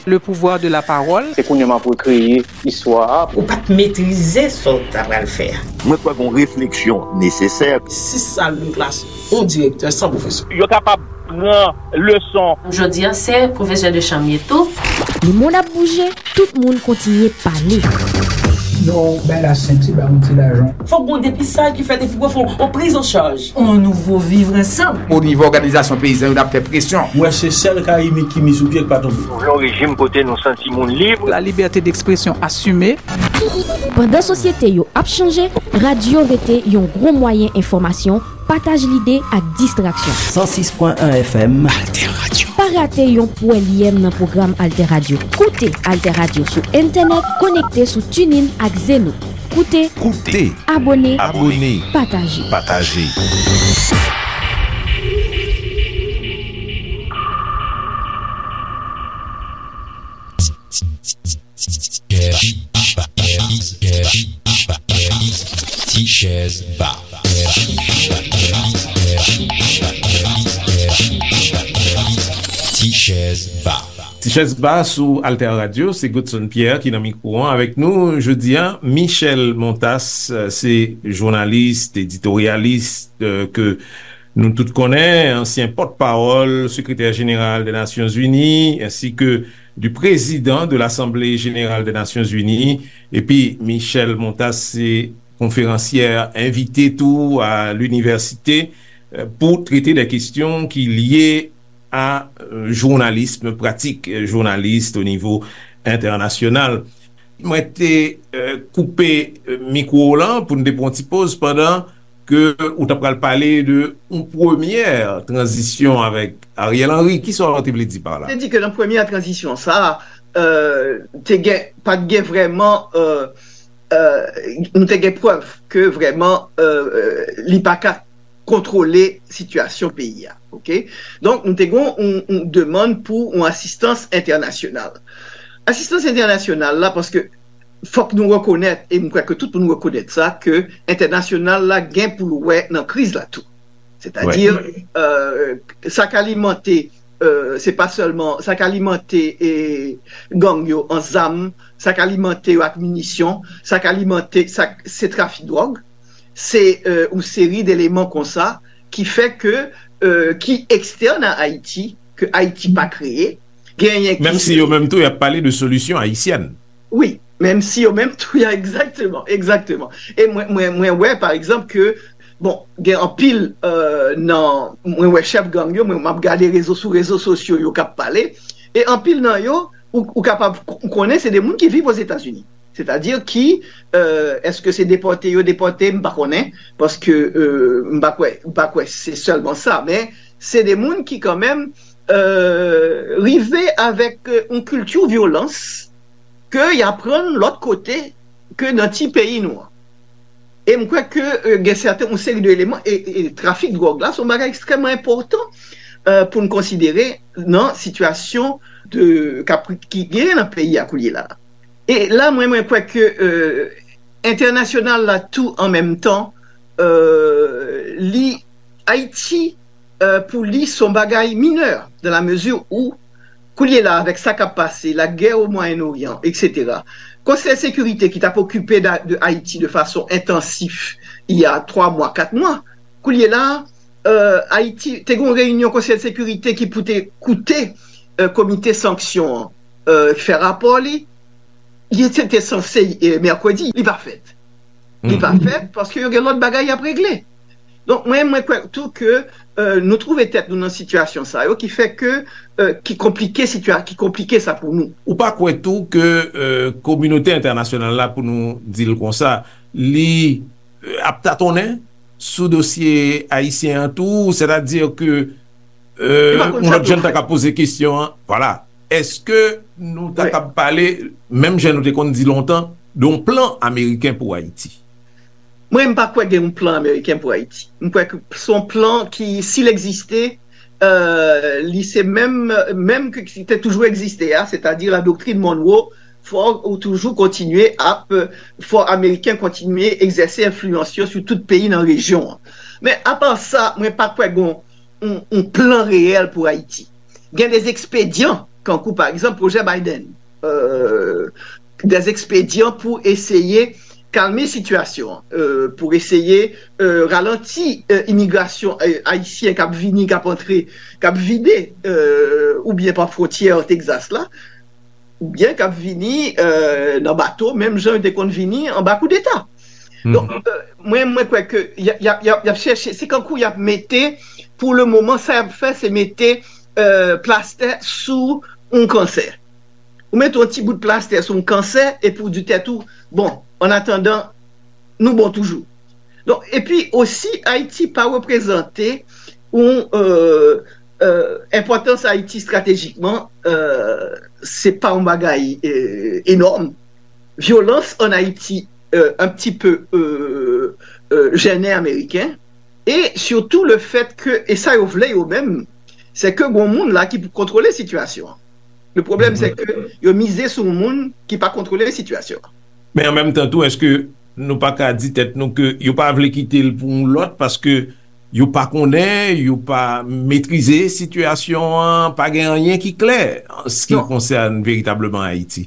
Le pouvoir de la parole. Se kounye a m ap rekreye istwa a. Ou pa t metrize sa w ta pral fè a. Mwen kwè gon refleksyon nesesè. Sis sal de klas, yon direktè san pwofesè. Yo kapab pran leson. Jodi a se pwofesè de chanm ye tou. Lemonn ap bouje, tout moun kontinye pale. Non, bay la senti, ba yon ti lajan. Fòk gon depisaj ki fèt epi pou fè yon priz an chaj. On nouvo vivre ansanm. O nivo òganizasyon peyizan yo n ap fè presyon. Mwen se sèl ka imit ki mi sou pye k pa tonbe. Nou vle yon rejim kote nou santi moun lib. La liberté d'expression assumée. Pandan sosyete yo ap chanje, radyo rete yon gwo mwayen enfòmasyon, pataj lide ak distraksyon. San sis pwen en F M. Alter Radio. Pa rate yon pwèlyèm nan pwogram Alter Radio. Koute Alter Radio sou entènèt, konekte sou TuneIn ak Zeno. Koute, koute, abone, abone, pataje. Pataje. Ti chèz ba. Ti chèz ba. Ti chèz ba sou Alter Radio, se Godson Pierre ki nan mikwo an avèk nou jodi a. Michel Montas, se jounalis, editoryalis ke nou tout konnen, ansyen pòtpawòl sekretè jeneral de Nasyonzini, ensi ke du président de l'Assemblée Générale des Nations Unies. Epi Michel Montas se konferansyè envite tou a linivèsite pou trete de kesyon ki lye a jounalism, pratik jounalis o nivo entènasyonal. Mwen te koupe mikwo w lan pou n te pran yon ti poz pandan ke ou ta pral pale de yon premyè tranzisyon avèk Ariel Henry. Kisa w te vle di pa la? Te di ke nan premyè tranzisyon sa a, te gen, pa t gen vrèman, nou te gen prèv ke vrèman li pa ka kontwole sitiyasyon peyi a. Oke? Donk, nou te gen yon demann pou yon asistans entènasyonal. Asistans entènasyonal la, paske fòk nou rekonèt, e m kwè ke tout moun rekonèt sa, ke entènasyonal la gen pou l wè nan kriz la tou. Sètadi, sa k alimante, se pa sèlman, sa k alimante gang yo an zam, sa k alimante yo ak minisyon, sa k alimante, sa, se trafik dwòg, se yon seri d eleman konsa ki fè ke, ki ekstèn a Ayiti, ke Ayiti pa kreye, genyen ki. Menm si yo menm tou, y ap pale de solisyon ayisyèn. Wi, menm si yo menm tou, ya, egzakteman, egzakteman. E mwen, mwen, mwen wè, pa egzanp, ke, bon, gen anpil nan, mwen wè chèf gang yo, mwen, m ap gade rezo, sou rezo sosyo yo k ap pale, e anpil nan yo, ou, ou kapab konnen se de moun ki viv Ozetazini. Sètadi ki, èske se depòte yo depòte, m pa konnen, paske m pa kwè, m pa kwè se sèlman sa, men se de moun ki kanmenm rive avèk yon kilti vyolans ke y aprann lòt kote ke nan ti peyi nou an. E m kwè ke gen sèten, yon seri de eleman, e trafik dwòg la se yon bagay ekstrèmman enpòtan pou n konsidere nan sitiyasyon de, k ap, ki genyen nan peyi a koulye la. E la, mwen, mwen kwè ke entènasyonal la tou an menm tan, li, Ayiti, pou li, se yon bagay minè, dans la mesure où, koulye la, avèk sa k ap pase, la guerre au Moyen-Orient, et cetera, Konsèy Sekirite ki t ap okipe de Ayiti de fason entansif, il y a twa mwa, kat mwa, koulye la, Ayiti, te gen yon reyinyon Konsèy Sekirite ki pou te koute Komite Sanksyon an, fè rapò li, li te, te sanse mèkredi, li pa fèt. Li pa fèt paske yo gen lòt bagay y ap regle. Donk, mwen, mwen kwè tou ke nou twouve tèt nou nan sitiyasyon sa yo ki fè ke, ki konplike sitiyasyon, ki konplike sa pou nou. Ou pa kwè tou ke kominote entènasyonal la, pou nou di l konsa, li ap tatonnen sou dosye ayisyen an tou, sètadi ke yon lòt jan ta ka poze kesyon an, vwala, èske nou ta ka pale, menm jan nou te konn di lontan, de yon plan ameriken pou Ayiti? Mwen, m pa kwè gen yon plan ameriken pou Ayiti. M kwè ke se yon plan ki, si l egziste, li se menm, menm ke ki te toujou egziste a, sètadi la doktrin Monroe, fò ou toujou kontinye ap, fò Ameriken kontinye egzèse enfliyans yo sou tout peyi nan rejyon an. Men apa sa, mwen pa kwè gen yon, yon plan reyèl pou Ayiti. Gen de ekspedyan, kankou pa egzanp pwojè Biden, euh, de ekspedyan pou eseye kalme sitiyasyon an, euh, pou eseye euh, ralanti euh, imigrasyon euh, ayisyen k ap vini, k ap antre, k ap vide euh, oubyen pa fwontyè Texas la, oubyen k ap vini euh, nan bato, menm jan yo te konn vini anba koudeta. Donk, euh, mwen, mwen kwè ke y ap, y ap, y ap, y ap chèche, se kankou y ap mete, pou le moman, sa y ap fè, se mete euh, plastè sou yon kansè. Ou mete yon ti bout plastè sou yon kansè, epi ou di tèt ou, bon, an atandan, nou bon toujou. Donk, epi osi, Ayiti pa reprezante yon euh, euh, enpòtans Ayiti estratejikman, euh, se pa yon bagay euh, enòm. Vyolans an Ayiti euh, un petit peu euh, euh, jènen Ameriken. E sitou le fèt ke, e sa yo vle yo menm, se ke gon moun la ki pou kontwole sitiyasyon an. Le pwoblèm se ke yo mize sou moun ki pa kontwole sitiyasyon an. Men an menm tan tou, èske nou pa ka di tèt nou ke yo pa vle kite l pou yon lòt paske yo pa konnen, yo pa metrize sitiyasyon an, pa gen anyen ki klè an se ki konsène veritableman Ayiti?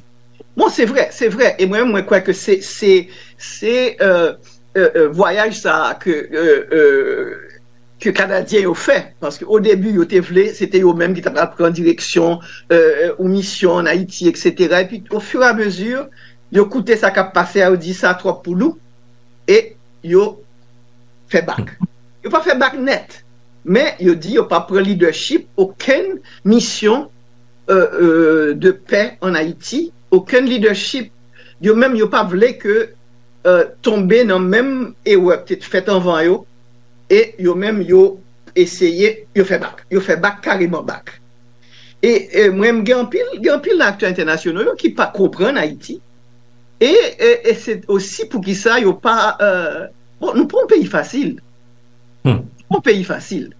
Bon, se vre, se vre. E mwen, mwen kwè ke se, se, se euh, euh, euh, vwayaj sa a ke euh, euh, ke Kanadyen yo fè. Paske o debi, yo te vle, se te yo menm ki ta pral pran direksyon euh, euh, ou misyon an Ayiti, et cetera. Epi, o fur e a mezi, yo koute sa k ap pase a, yo di sa twòp pou nou, e yo fè bak. Yo pa fè bak nèt, men yo di yo pa pran lidèchip okenn misyon euh, euh, de pè an Ayiti, okenn lidèchip, yo menm yo pa vle ke euh, tonbe nan menm erè k te fèt anvan yo, e yo menm yo eseye, yo fè bak. Yo fè bak, kareman bak. E, e mwen, m gen anpil, gen anpil nan aktè entènasyonal yo ki pa konprann Ayiti. E, e, e se osi poukisa yo pa. Euh, bon, nou pa yon peyi fasil. Hmm. Nou pa yon peyi fasil.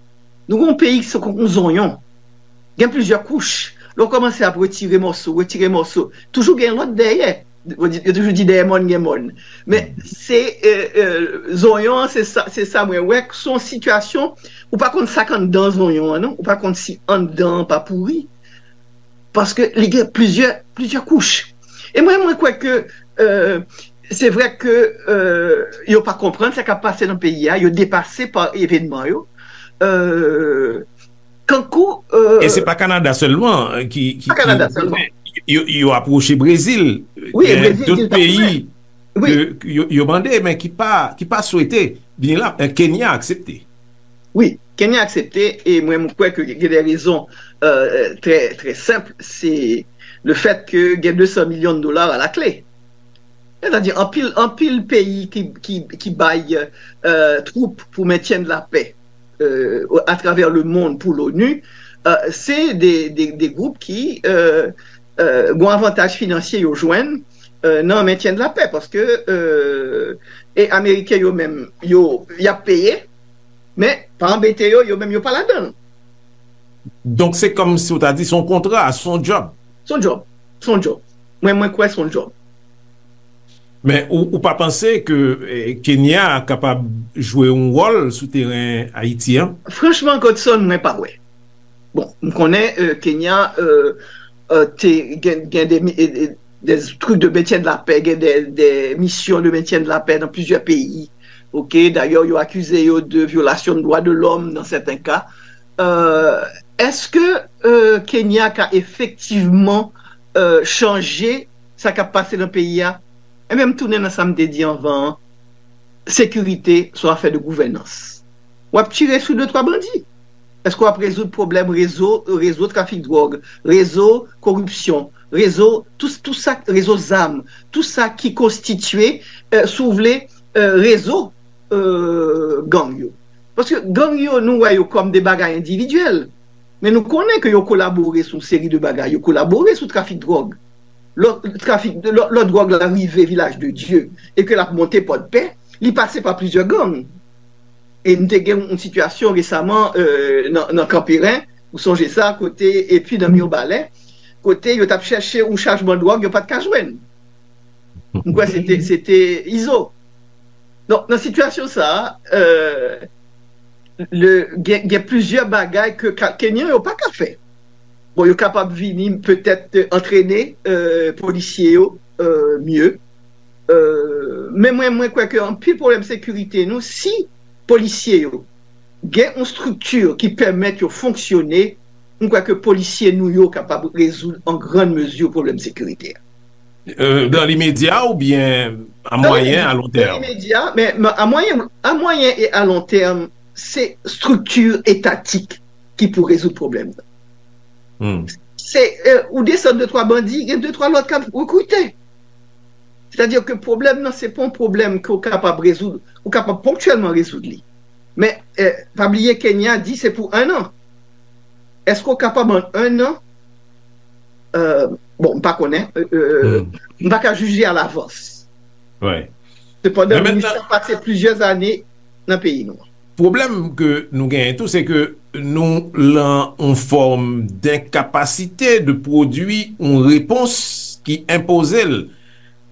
Nou yon peyi ki se konkou zonyon. Gen plizyè kouch. Lè w kòmanse ap retire mòso, retire mòso, toujou gen lòt dèyè. Yo toujou di dèyè mòn gen mòn. Men se euh, euh, zonyon an, se sa, se sa mwen wè, se yon sitiyasyon, ou pa konn sa k anndan zonyon an, non? Ou pa konn si anndan an pa pouri. Paske li gen plizyè, plizyè kouch. E mwen, mwen kwè ke euh, se vre ke euh, yo pa konprann sa k ap pase nan peyi a, yo depase pa evènman yo. Euh, kankou. Euh, e se pa Kanada sèlman ki, ki, ki yo, yo apwoche Brezil. Gen dòt peyi ke yo, yo mande, men ki pa, ki pa swete vini la. Kenya aksepte. Wi, Kenya aksepte, e mwen, m kwè ke gen de rezon euh, trè, trè senp. Se le fèt ke gen de san milyon dola a la kle. Sètadi, anpil, anpil peyi ki, ki, ki bay euh, twoup pou mentyen de la pè euh, atravè le mond pou l'ONU, euh, se de, de, de gwoup ki euh, euh, gon avantaj finansye yo jwenn euh, nan mentyen de la pè, paske euh, e Ameriken yo menm, yo, y ap peye, men pa anbete yo, yo menm yo pa ladan l. Donk se kòmsi w ta di se yon kontra, se yon djòb. Se yon djòb. Se yon djòb. Mwen, mwen kwè se yon djòb. Men ou, ou pa panse ke eh, Kenya kapab jwe yon wòl sou teren Ayiti an? Franchman, Godson, mwen pa wè. Bon, m konnen euh, Kenya euh, euh, te gen, gen de, de, de trucs de maintien de la paix, gen de, de missions de maintien de la paix dans plusieurs pays. Ok, d'ailleurs, ils ont accusé eux de violation de droits de l'homme dans certains cas. Euh, est-ce que euh, Kenya a effectivement euh, changé sa k ap pase nan peyi a? E menm tounen nan sa m te di anvan an, sekirite se yon afè de gouvènans. W ap tire sou de twa bandi. Èske w ap rezoud pwoblèm rezo, rezo trafik dwòg, rezo koripsyon, rezo tout, tout sa, rezo zam, tout sa ki konstitye, euh, si w vle, euh, rezo euh, gang yo? Paske gang yo, nou wè yo kòm de bagay endividyèl. Men nou konnen ke yo kolabore sou yon seri de bagay. Yo kolabore sou trafik dwòg. Lò trafik, lò, lò dwòg la rive Vilaj de Dye e ke l ap monte Pòdpè, li pase pa plizyè gang. E n te gen yon sitiyasyon resaman euh, nan, nan Kanperen, ou sonje sa, kote, epi nan Mibalè, kote yo t ap chèche yon chajman dwòg, yo pa t ka jwenn. M kwè se te, se te Izo. Donk, nan sitiyasyon sa a, euh, le, gen, gen plizyè bagay ke Kenyan yo pa ka fè. Bon, yo kapab vini petèt antrene euh, polisye yo euh, mye. Euh, men mwen, mwen kwè ke anpil pwoblèm sekirite nou, si polisye yo gen yon estrikti ki pèmèt yo fonksyone, mwen kwè ke polisye nou yo kapab rezoud an grann mezi pwoblèm sekirite a. Euh, dans l'immédiat ou bien à moyen, à long terme? Imedya, men a mwayen, a mwayen e a lon tèm, se estrikti etatik ki pou rezoud pwoblèm nan. Hmm. Se euh, ou desann de twa bandi, gen de twa lòt k ap rekrite. Sètadi ke pwoblèm nan se pa yon pwoblèm ke w kapab rezoud, ou kapab ponktyèlman rezoud li. Men euh, pa bliye Kenya di se pou en an. Èske w kapab an en an? Euh, bon, m pa konnen. Euh, m pa ka jije alavans. Wi. Sepandan, Men minis mentnan- la pase plizyè ane nan peyi nou. Pwoblèm ke nou genyen tou, se ke nou lan yon fòm denkapasite de pwodui yon repons ki enpoze l.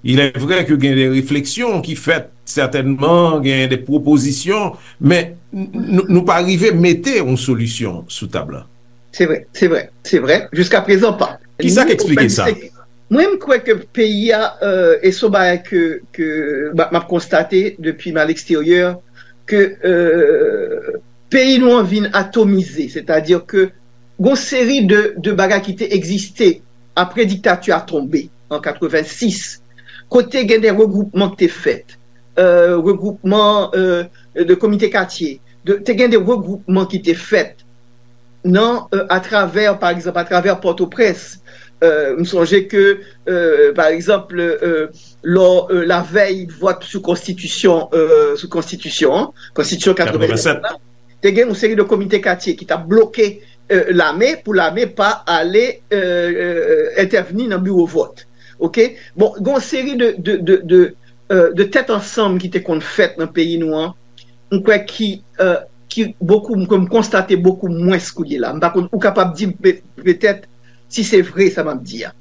Il est vrai ke gen de refleksyon ki fèt, sètènman, gen de pwopozisyon, men n- n- nou pa rive mete yon solisyon sou tab la. Se vre, se vre, se vre. Jiska prezan pa. Kisa k eksplike sa? Mwen, m kwè ke peyi a, euh, e se yon bagay ke, ke m ap konstate depi m al eksteryè, ke euh, peyi nou an vin atomize, sètadi ke gon seri de, de bagay ki te egziste apre diktati a tonbe an katrevensis, kote gen de regwoupman ki te fèt, euh, regwoupman euh, de komite katye, de, te gen de regwoupman ki te fèt nan euh, atravè, pa egzanp, atravè Pòtoprens. Euh, m sonje ke, euh, pa egzanp, euh, lò euh, lavèy vòt sou konstitisyon, euh, sou konstitisyon an, konstitisyon katrevennsèt la, te gen yon seri de komite katye ki t ap bloke euh, lame pou lame pa ale euh, euh, entèvni nan biwo vòt. Oke? Bon, gen yon seri de, de, de, de, euh, de tèt ansanm ki te konn fèt nan peyi nou an, m kwè ki, euh, ki bokou, ke m konstate bokou mwens kounye la. M pa konn, ou kapab di m pe- petèt si se vre sa m ap di a.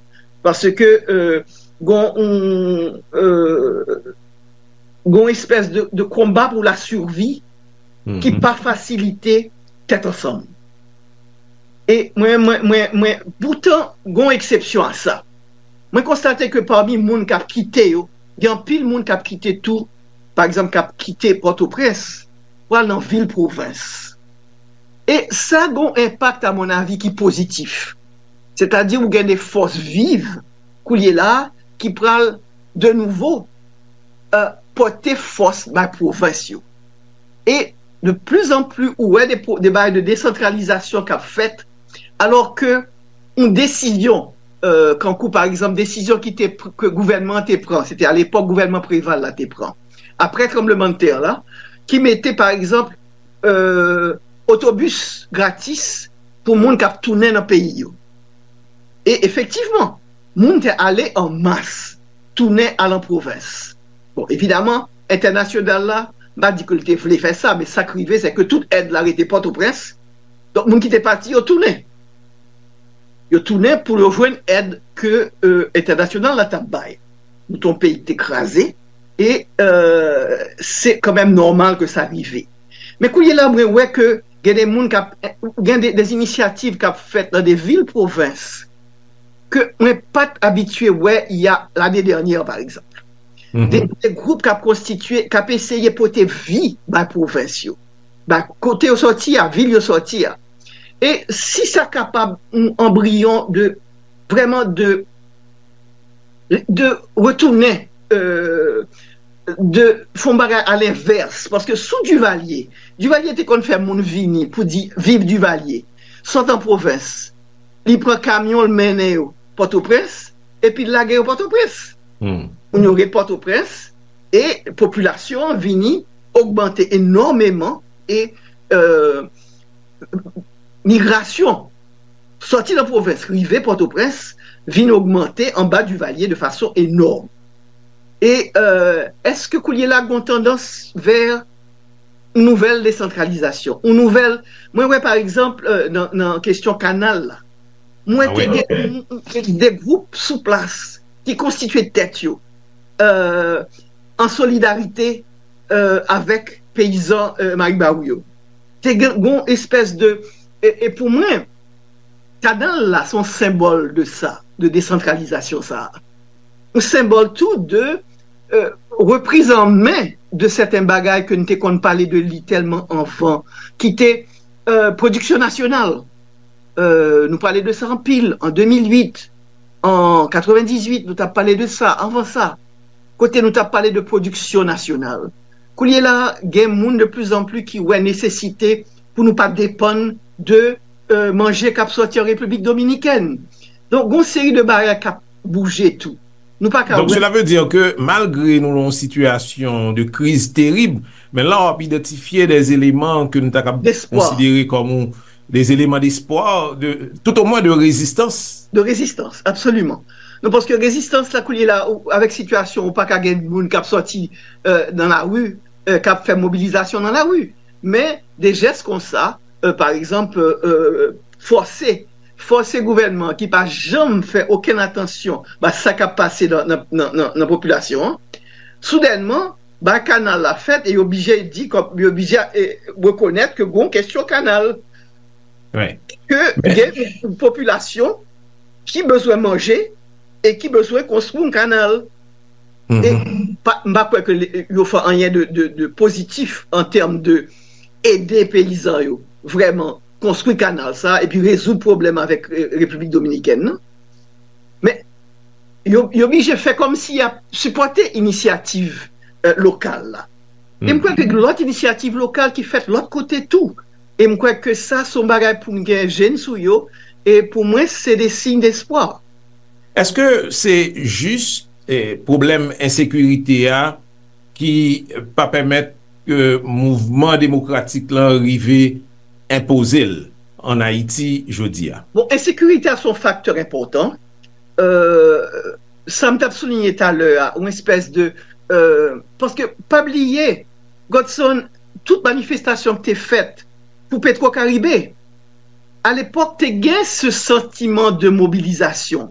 Paske euh, gon yon, euh, gon espès de, de konba pou la survi ki pa fasilite tèt ansanm. E mwen, mwen, mwen, mwen, poutan, gon eksepsyon a sa. Mwen konstate ke pami moun k ap kite yo, gen anpil moun k ap kite tou, pa egzanp, k ap kite Pòtoprens pou al nan vil pwovens. E sa gon enpak, a mon avi, ki pozitif. Sètadi ou gen de fòs viv koulye la ki pral de nouvo euh, pote fòs bay pwovens yo. E de plus en plus ou wè de, de bagay de desantralizasyon k ap fèt, alò ke yon desizyon, euh, kankou pa egzanp desizyon ki te ke gouvènman an te pran, se te alepòk gouvènman Preval la te pran, apre tranblemanntè la, ki mete pa egzanp euh, otobis gratis pou moun k ap tounen nan peyi yo. E efektivman, moun te ale an mas, tounen al an pwovens. Bon, evidaman, entènasyonal la, m pa di ke l te vle fè sa, men sa k rive, se ke tout èd la rete Pòtoprens. Donk, moun ki te pati yo tounen. Yo tounen pou yo jwenn èd ke euh, entènasyonal la t ap bay. Nou te yon peyi ki te kraze, e euh, se kanmenm nòmal ke sa rive. Men kounye la, mwen wè ke gen de moun k ap, gen de, de inisyativ k ap fèt nan de vil pwovens ke mwen pa t abitye wè y a lane dènyè, pa egzanp. De, de gwoup k ap konstitye, k ap eseye pote vi bay pwovens yo, bay kote yo sòti a, vil yo sòti a. E si sa kapab yon anbriyon de vrèman de de retounen euh, de fè yon bagay alenvès, paske sou Divalye, Divalye te konn fè moun vini pou di viv Divalye, sot an pwovens, li pran kamyon l mennen yo Pòtoprens, epi l lage yo Pòtoprens. Moun yo ret Pòtoprens, e popilasyon an vini ogmante enòmeman, e euh, migrasyon sòti nan pwovens rive Pòtoprens vin ogmante anba Divalye de fason enòm. E euh, èske koulye la gon tandans vè nouvèl desantralizasyon, yon nouvèl, mwen wè pa egzanp euh, nan, nan kesyon kanal la, mwen te gen de gwoup sou plas ki konstitye tèt yo euh, an solidarite euh, avèk peyizan euh, Maribawou yo. Te gen yon espès de e, e pou mwen Kanal la se yon senbòl de sa, de desantralizasyon sa a. Yon senbòl tou de euh, repriz an men de sèten bagay ke n te konn pale de li tèlman anvan, ki te euh, pwodiksyon nasyonal. Euh, nou pale de sa anpil an de mil uit, an katrevendizuit, nou t ap pale de sa, anvan sa. Kote nou t ap pale de pwodiksyon nasyonal. Koulye la, gen moun de plizanpli ki wè nesesite pou nou pa depann de euh, manje k ap sòti an Repiblik Dominikèn. Donk, gon seri de bagay k ap bouje tou. Nou pa ka Donk, wè. Cela veut dire que malgré nou nan yon sitiyasyon de kriz terib, men la w ap idantifye des éléments ke nou ta kab D'espoir. Konsidere kòm ou, des éléments d'espoir, de, tout au moins de résistance. De rezistans, absoliman. Non, paske rezistans la, koulye la, ou, avèk sitiyasyon, ou pa ka gen moun k ap sòti euh, nan lari, euh, k ap fè mobilizasyon nan lari. Men, de jès konsa, euh, pa egzanp, euh, fòse, fòse gouvènman ki pa janm fè okenn atansyon ba sa k ap pase nan, nan, nan, nan, nan popilasyon an, soudènman, ba kanal la fèt e yo oblije di, kòm, yo oblije eh, rekonèt ke gon kesyon kanal. Wi. Ke Men, gen yon popilasyon ki bezwen manje e ki bezwen konstwi yon kanal. E Mhm. pa, m pa kwè ke le- yo fè anyen de, de, de pozitif an tèm de ede peyizan yo vrèman konstwi kanal sa epi rezoud pwoblèm avèk eh, Repiblik Dominikèn nan. Men yo, yo oblije fè kòmsi y ap sipòte inisyativ eh, lokal la. E m kwè ke lòt inisyativ lokal ki fèt lòt kote tou. E m kwè ke sa se yon bagay pou n gen je n sou yo. E pou mwen, se de siy despwa. Èske se jis eh, pwoblèm ensekirite a ki pa pèmèt ke mouvman demokratik lan rive enpoze l an Ayiti jodi a? Bon, ensekirite a se yon faktè enpòtan. Euh, sa m t ap souliye talè a, yon espès de euh, paske pa bliye, Godson, tout manifestasyon ki te fèt pou Petro Caribe, alepòk te gen se santiman de mobilizasyon,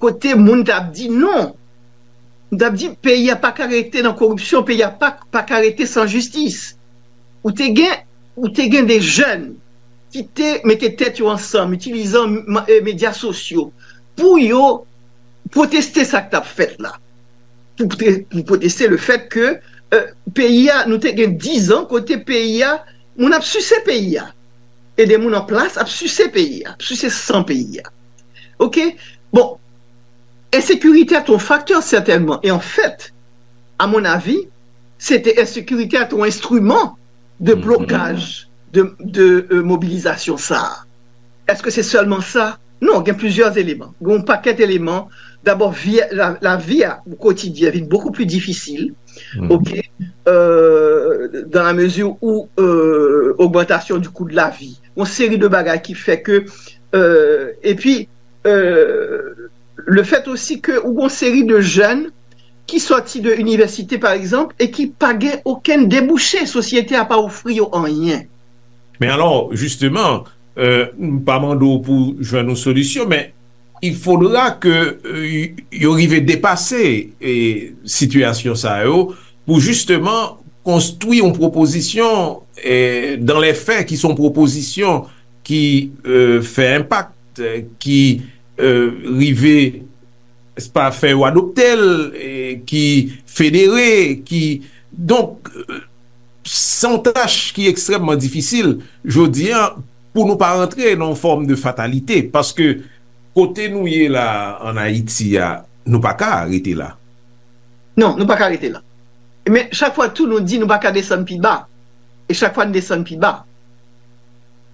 kote moun t ap di non, moun t ap di peyi a pa ka rete nan koripsyon, peyi a pa, pa ka rete san jistis. Ou te gen, ou te gen de jèn ki te mete tèt yo ansanm, itilizan medya sosyo, pou yo pwoteste sa k t ap fèt la. Pou, pou pwoteste le fèt ke euh, peyi a, nou te gen dizan kote peyi a, moun ap sise peyi a. E de moun an plas ap sise peyi a, ap sise san peyi a. Oke? Bon, ensekirite a te yon faktè sètènman. E anfèt, a mon avi, se te ensekirite a te yon enstriman de blokaj de, de euh, mobilizasyon sa a. Èske se sèlman sa? Non, gen plizyè eleman. Gen yon pakèt eleman. Dabò, vi, la, lavi a, o kotidyen, vin bokou pli difisil. Oke? Euh, dans la mesure où euh, augmentation du coût de la vie. Yon seri de bagay ki fè ke euh, epi euh, le fèt osi ke ou gon seri de jèn ki sòti de inivèsite pa egzanp e ki pa gen okenn debouche, sosyete a pa ofri yo anyen. Men alò, jisteman, euh, m pa mande w pou jwenn yon solisyon, men il faudra ke euh, yo rive depase eh, sitiyasyon sa yo pou jisteman konstwi yon pwopozisyon eh, dans les faits ki se yon pwopozisyon ki euh, fè enpak, eh, ki euh, rive pa fè yo adopte l, eh, ki federe, ki donk euh, se yon tach ki ekstrèmman difisil jodi a pou nou pa rantre nan yon fòm de fatalite, paske kote nou ye la an Ayiti a, nou pa ka rete la. Non, nou pa ka rete la. Men chak fwa tou nou di nou pa ka desann pi ba. E chak fwa n desann pi ba.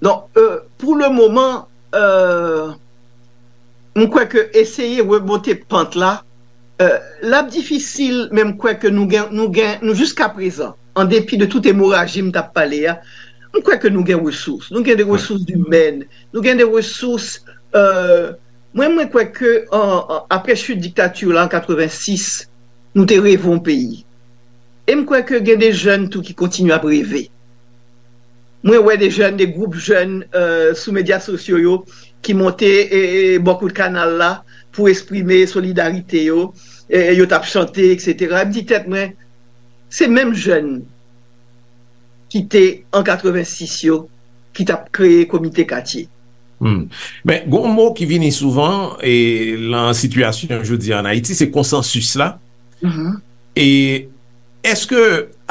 Donk, euh, pou le moman, euh, m kwè ke eseye remonte pant la, euh, l ap difisil, men m kwè ke nou gen, nou gen, nou jiska prezan, an depi de tout emoraji m t ap pale a, m kwè ke nou gen resous. Nou gen de resous imèn, nou gen de resous, euh, mwen, mwen kwè ke an, an, apre chit diktati la an katrevensis, nou te reve yon peyi. E m kwè ke gen de jèn tou ki kontinye ap reve. Mwen wè de jèn, de gwoup jèn euh, sou medya sosyo yo ki monte e, e, bò kout kanal la pou eksprime solidarite yo. E, yo t ap chante, etsetera. M di tèt mwen, se menm jèn ki te an katrevensis yo ki t ap kreye komite katye. Hmm. Men, gon mo ki vini souvan e, lan sitiyasyon jodi an Ayiti, se konsansis la. E èske,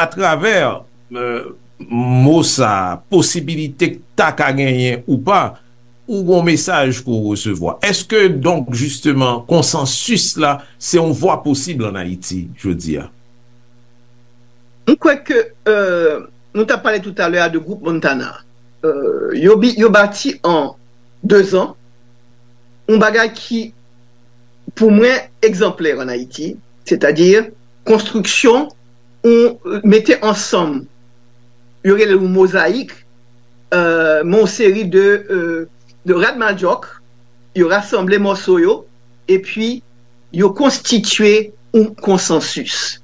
atravè euh, mo sa, posibilite k ta ka genyen ou pa, ou gon mesaj pou w resevwa? Èske, donk, jisteman, konsansis la, se yon vwa posib an Ayiti, jodi a? M kwè ke euh, nou t ap pale toutalè a de gwoup Montana. Euh, yo, bi- yo bati an de zan yon bagay ki, pou mwen, egzanplè an Ayiti, sètadi konstriksyon ou mete ansanm, yo rele l yon mozayik, euh, men yon seri de, euh, de rad madyòk, yo rasanble mòso yo, epi yo konstitye yon konsansis.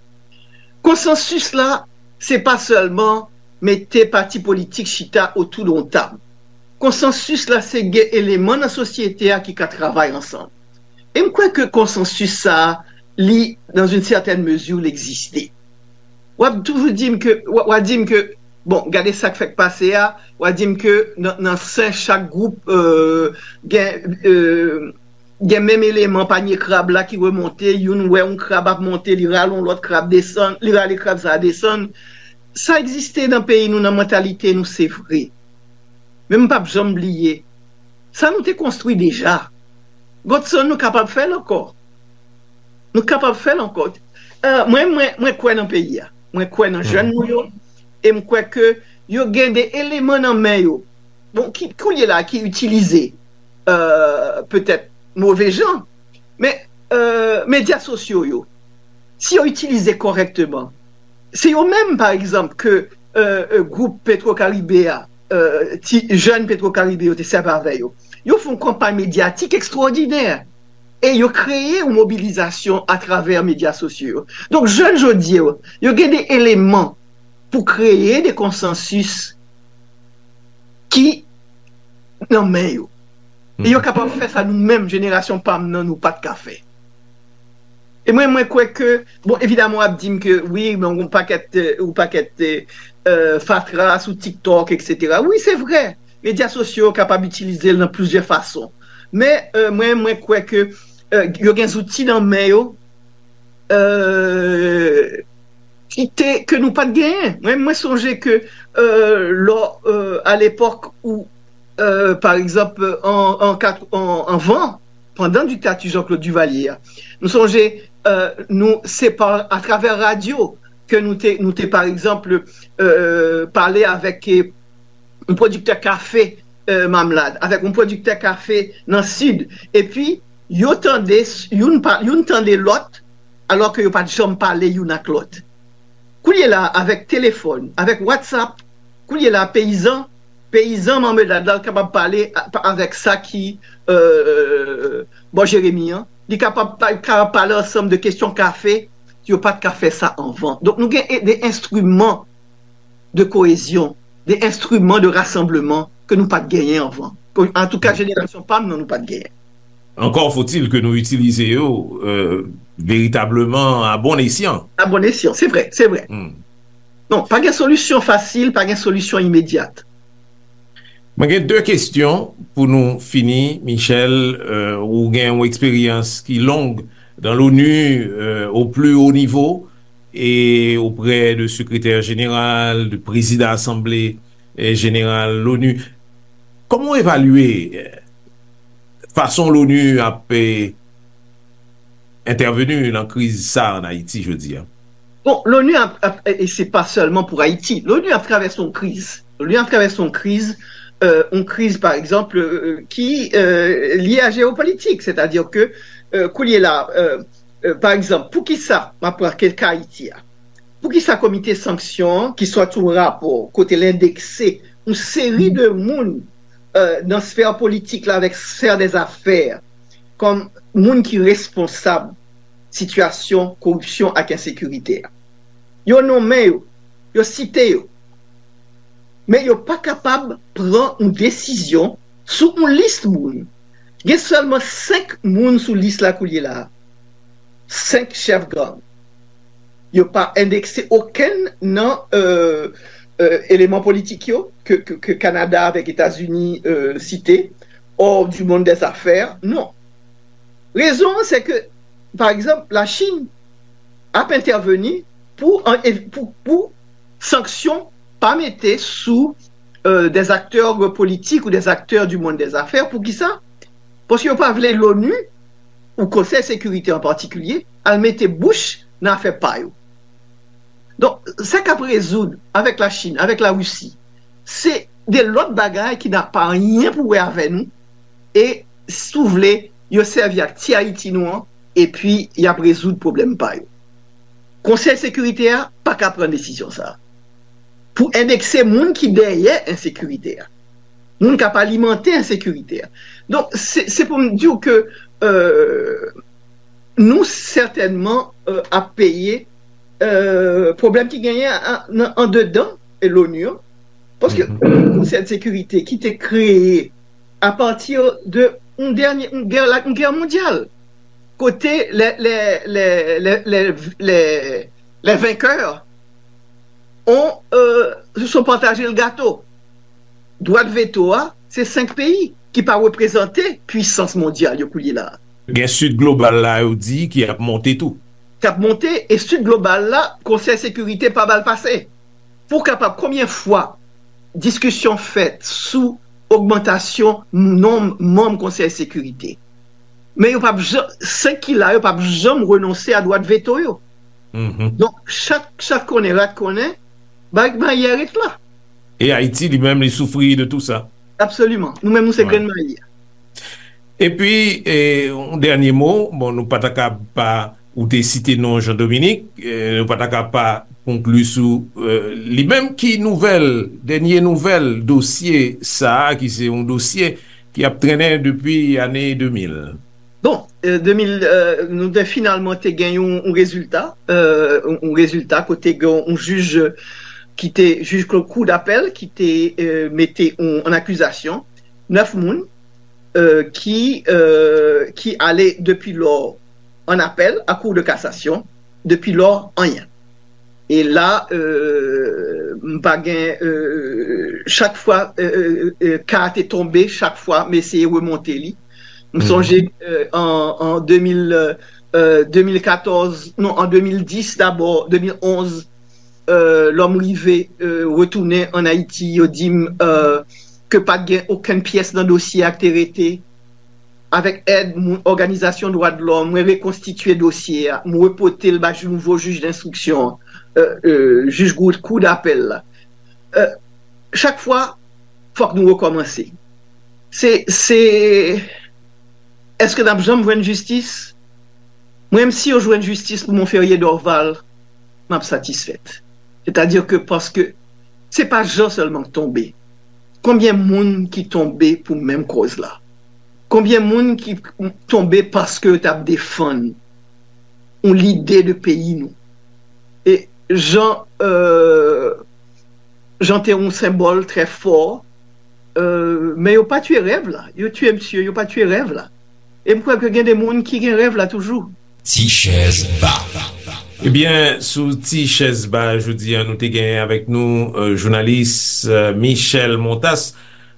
Konsansis la, se pa sèlman mete pati politik chita otou de yon tab. Konsansis la, se gen eleman nan sosyete a ki ka travay ansanm. E m kwè ke konsansis sa a, li, dans une certaine mesure, li egziste. W ap toujou di m ke, w a di m ke, bon, gade sa k fèk pase a, w a di m ke nan, nan sen chak gwoup euh, gen, euh, gen menm eleman panye krab la ki remonte, youn wè yon krab ap monte, li rale yon lòt krab desann, li rale krab sa a desann. Sa egziste nan peyi nou, nan mantalite nou, se vre. Men m p ap janm bliye, sa nou te konstwi deja. Godson, nou kapab fè l ankò. Nou kapab fè l ankò. Euh, mwen, mwen, mwen kwè nan peyi a. Mwen kwè nan jèn nou yo. E m kwè ke yo gen de eleman nan men yo. Bon, ki, kounye la, ki itilize euh, petèt move jan. Men euh, medya sosyo yo, si yo itilize kòrèkteman, se yo menm, pa egzanp, ke euh, euh, gwoup Petro Caribe a, euh, ti jèn Petro Caribe yo te sèvi avè yo. Yo fè yon kanpay medyatik ekstwòdinè. E yo kreye yon mobilizasyon atravè medya sosyo yo. Donk, jèn jodi yo, yo gen de eleman pou kreye de konsansis ki nan men yo. E yo kapab fè sa nou menm, jenerasyon pa m nan, nou pa t ka fè. E mwen, mwen kwè ke, bon, evidaman, w ap di m ke, wi, men yon pakèt, euh, yon pakèt euh, fatra sou TikTok, etsetera. Wi, se vre. Medya sosyo yo kapab itilize l nan plizyè fason. Men euh, mwen, mwen kwè ke euh, yo gen zouti nan men yo euh, ki te, ke nou pa t genyen. Mwen, mwen sonje ke euh, lò, euh, a lepòk ou, euh, pa egzanp, an, an, kat- an, anvan, pandan diktati Jean-Claude Duvalier a, nou sonje euh, nou, se pa atravè radyo ke nou te, nou te pa egzanp, euh, pale avèk euh, yon pwodiktè kafe euh, Mamlad, avèk yon pwodiktè kafe nan Sid, epi yo tande, youn, pa, youn tande lòt, alò ke yo pa t janm pale youn ak lòt. Kounye la, avèk telefòn, avèk WhatsApp, kounye la, peyizan, peyizan Mamlad la kapab pale a- avèk sa ki euh, bò Jeremi an. Li kapab, pa- kapab pale ansanm de kesyon kafe, yo pa t ka fè sa anvan. Donk, nou gen e- de enstriman de koyezyon, de enstriman de rasanbleman ke nou pa t genyen anvan. Ke, antouka, jenerasyon pa m nan, nou pa t genyen. Encore faut-il que nou itilize yo euh, veritableman a bon esyan. A bon esyan, se vre, se vre. Non, pa gen solisyon fasil, pa gen solisyon imedyat. Mwen gen de kesyon pou nou fini, Michel. Euh, ou gen yon eksperyans ki long dans l'ONU euh, au plus haut niveau et auprès de secrétaire général, de président assemblée euh, générale l'ONU. Kòman w evalye euh, fason l'ONU ap euh, entèveni nan kriz sa an Ayiti jodi a? Bon, l'ONU ap, ap, e se pa sèlman pou Ayiti. L'ONU ap travèse yon kriz. L'ONU ap travèse yon kriz, euh, yon kriz, pa egzanp, euh, ki euh, lye a jewopolitik. Sètadi ke euh, kounye la, euh, euh, pa egzanp, poukisa, m ap pran ke ka Ayiti a, poukisa komite sanksyon an, ki sòti yon rapò kote l endekse yon seri de moun euh, nan sfè politik la avèk sfè dèzafè kòm moun ki responsab sitiyasyon koripsyon ak ensekirite a. Yo nonmen yo, yo site yo, men yo pa kapab pran yon desizyon sou yon lis moun. Gen sèlman senk moun sou lis la kounye la a. Senk chèf gang. Yo pa endekse okenn nan euh, euh, eleman politik yo ke, ke, ke Kanada avèk Etazini euh, site. hors du monde des affaires, non. Rezon an, se ke, pa egzanp, Lachin ap entèveni pou, an, ev-, pou, pou sanksyon pa mete sou, euh, des acteurs politiques ou des acteurs du monde des affaires. Poukisa? Paske yo pa vle l'ONU, ou Konsèy Sekirite an patikilye, al mete bouch nan afè pa yo. Donk, sa k ap rezoud avèk Lachin, avèk Larisi, se de lòt bagay ki napa anyen pou wè avè nou, e, si w vle, yo sèvi ak ti Ayiti nou an, epi y ap rezoud pwoblèm pa yo. Konsèy Sekirite a pa ka pran desizyon sa a pou endekse moun ki dèyè ensekirite a, moun k ap alimante ensekirite a. Donk, se, se pou m di w ke, euh, nou sètènman, euh, ap peye, euh, pwoblèm ki genyen a, nan, andedan, e, l'ONU an. Paske Konsèy de Sekirite ki te kreye apati de yon dènye, yon gè, yon gè mondyal, kote les, les, les, les, les, les, les vainqueurs ont, euh, se sont partagé le gâteau. Dwa de veto a, se senk peyi ki pa reprezante pwisans mondyal yo koulye la a. Gen Sid Global la, yo di, ki ap monte tou. K ap monte, e Sid Global la, Konsèy Sekirite pa ba l pase. Pou w kapab, konbyen fwa diskisyon fèt sou ogmantasyon nonb manm Konsèy Sekirite? Men yo p ap janm, senk ki la yo p ap janm renonse a dwa de veto yo. Donk, chat, chat konnen, rat konnen, bay mayi a ret la. E Ayiti, li menm, li soufri de tou sa. Absoliman. Nou menm, nou se grenn mayi a. Epi, e, yon dènye mo, bon, nou pa ta ka pa, ou te site non Jean Dominique, e, nou pa ta ka pa konkli sou, e, li menm. Ki nouvèl, dènye nouvèl dosye sa a, ki se yon dosye ki ap trennen depi ane de mil? Bon, e, de mil, e, nou te finalman te gen yon, yon rezilta, e, yon, yon rezilta kote gen yon jij ki te, jij kou, kou dapèl ki te, e, mete yon, an akizasyon nèf moun, e, ki, e, ki ale depi lò an apèl a Kou de kasasyon, depi lò, anyen. E la, e, m pa gen, e, chak fwa, e, e, e, ka a te tonbe, chak fwa m eseye remonte li. M sonje, e, an, an de mil, e, de mil katòz, non, an de mil dis dabò, de mil onz, e, lò m rive, e, retounen ann Ayiti, yo di m, e, ke pa t gen okenn pyès nan dosye a k te rete. Avèk èd moun, òganizasyon dwa de lòm, mwen rekonstitye dosye a, mwen repote l bay nouvo jij denstriksyon an, e, e, jij Goud, kou dapèl la. E, chak fwa, fòk nou rekòmanse. Se, se, èske n ap janm jwenn jistis? Mwen menm, si yo jwenn jistis pou Monferrier Dorval, m ap satisfèt. Sètadi ke, paske se pa Jean sèlman k tonbe. Konbyen moun ki tonbe pou menm kòz la? Konbyen moun ki tonbe paske yo t ap defann yon lide de peyi nou? E Jean, e, Jean te yon senbòl trè fò, e, men yo pa tiye rèv la. Yo tiye misye, yo pa tiye rèv la. E m kwè ke gen de moun ki gen rèv la toujou. Ti chèz ba. Ebyen, sou Ti chèz ba jodi a, nou te genyen avèk nou, e, jounalis, e, Michel Montas,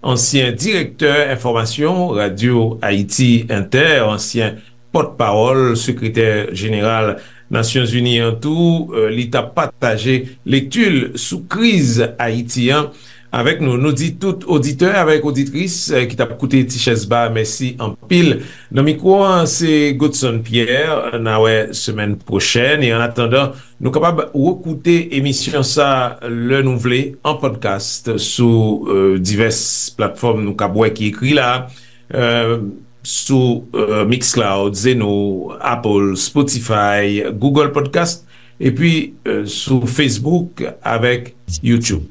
ansyen direktè enfòmasyon Radyo Ayiti Entè, ansyen pòtpawòl sekretè jeneral Nasyonzini an tou. E, li t ap pataje lekti l sou kriz Ayiti an avèk nou. Nou di tout oditè avèk oditris, e, ki t ap koute Ti chèz ba, mèsi anpil. Nan mikwo an, se Godson Pierre. N a wè semèn pwochèn. E annatandan, nou kapab rekoute emisyon sa lè nou vle, an podcast, sou, e, divès platfòm nou kab wè ki ekri la, e, sou, e, Mixcloud, Zeno, Apple, Spotify, Google Podcast, epi, e, sou Facebook avèk YouTube.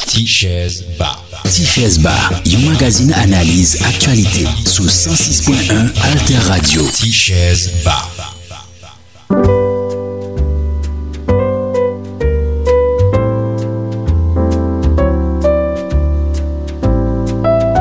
Ti chèz ba. Ti chèz ba, yon magazin analiz aktyalite sou san sis pwen en Alter Radio. Ti chèz ba.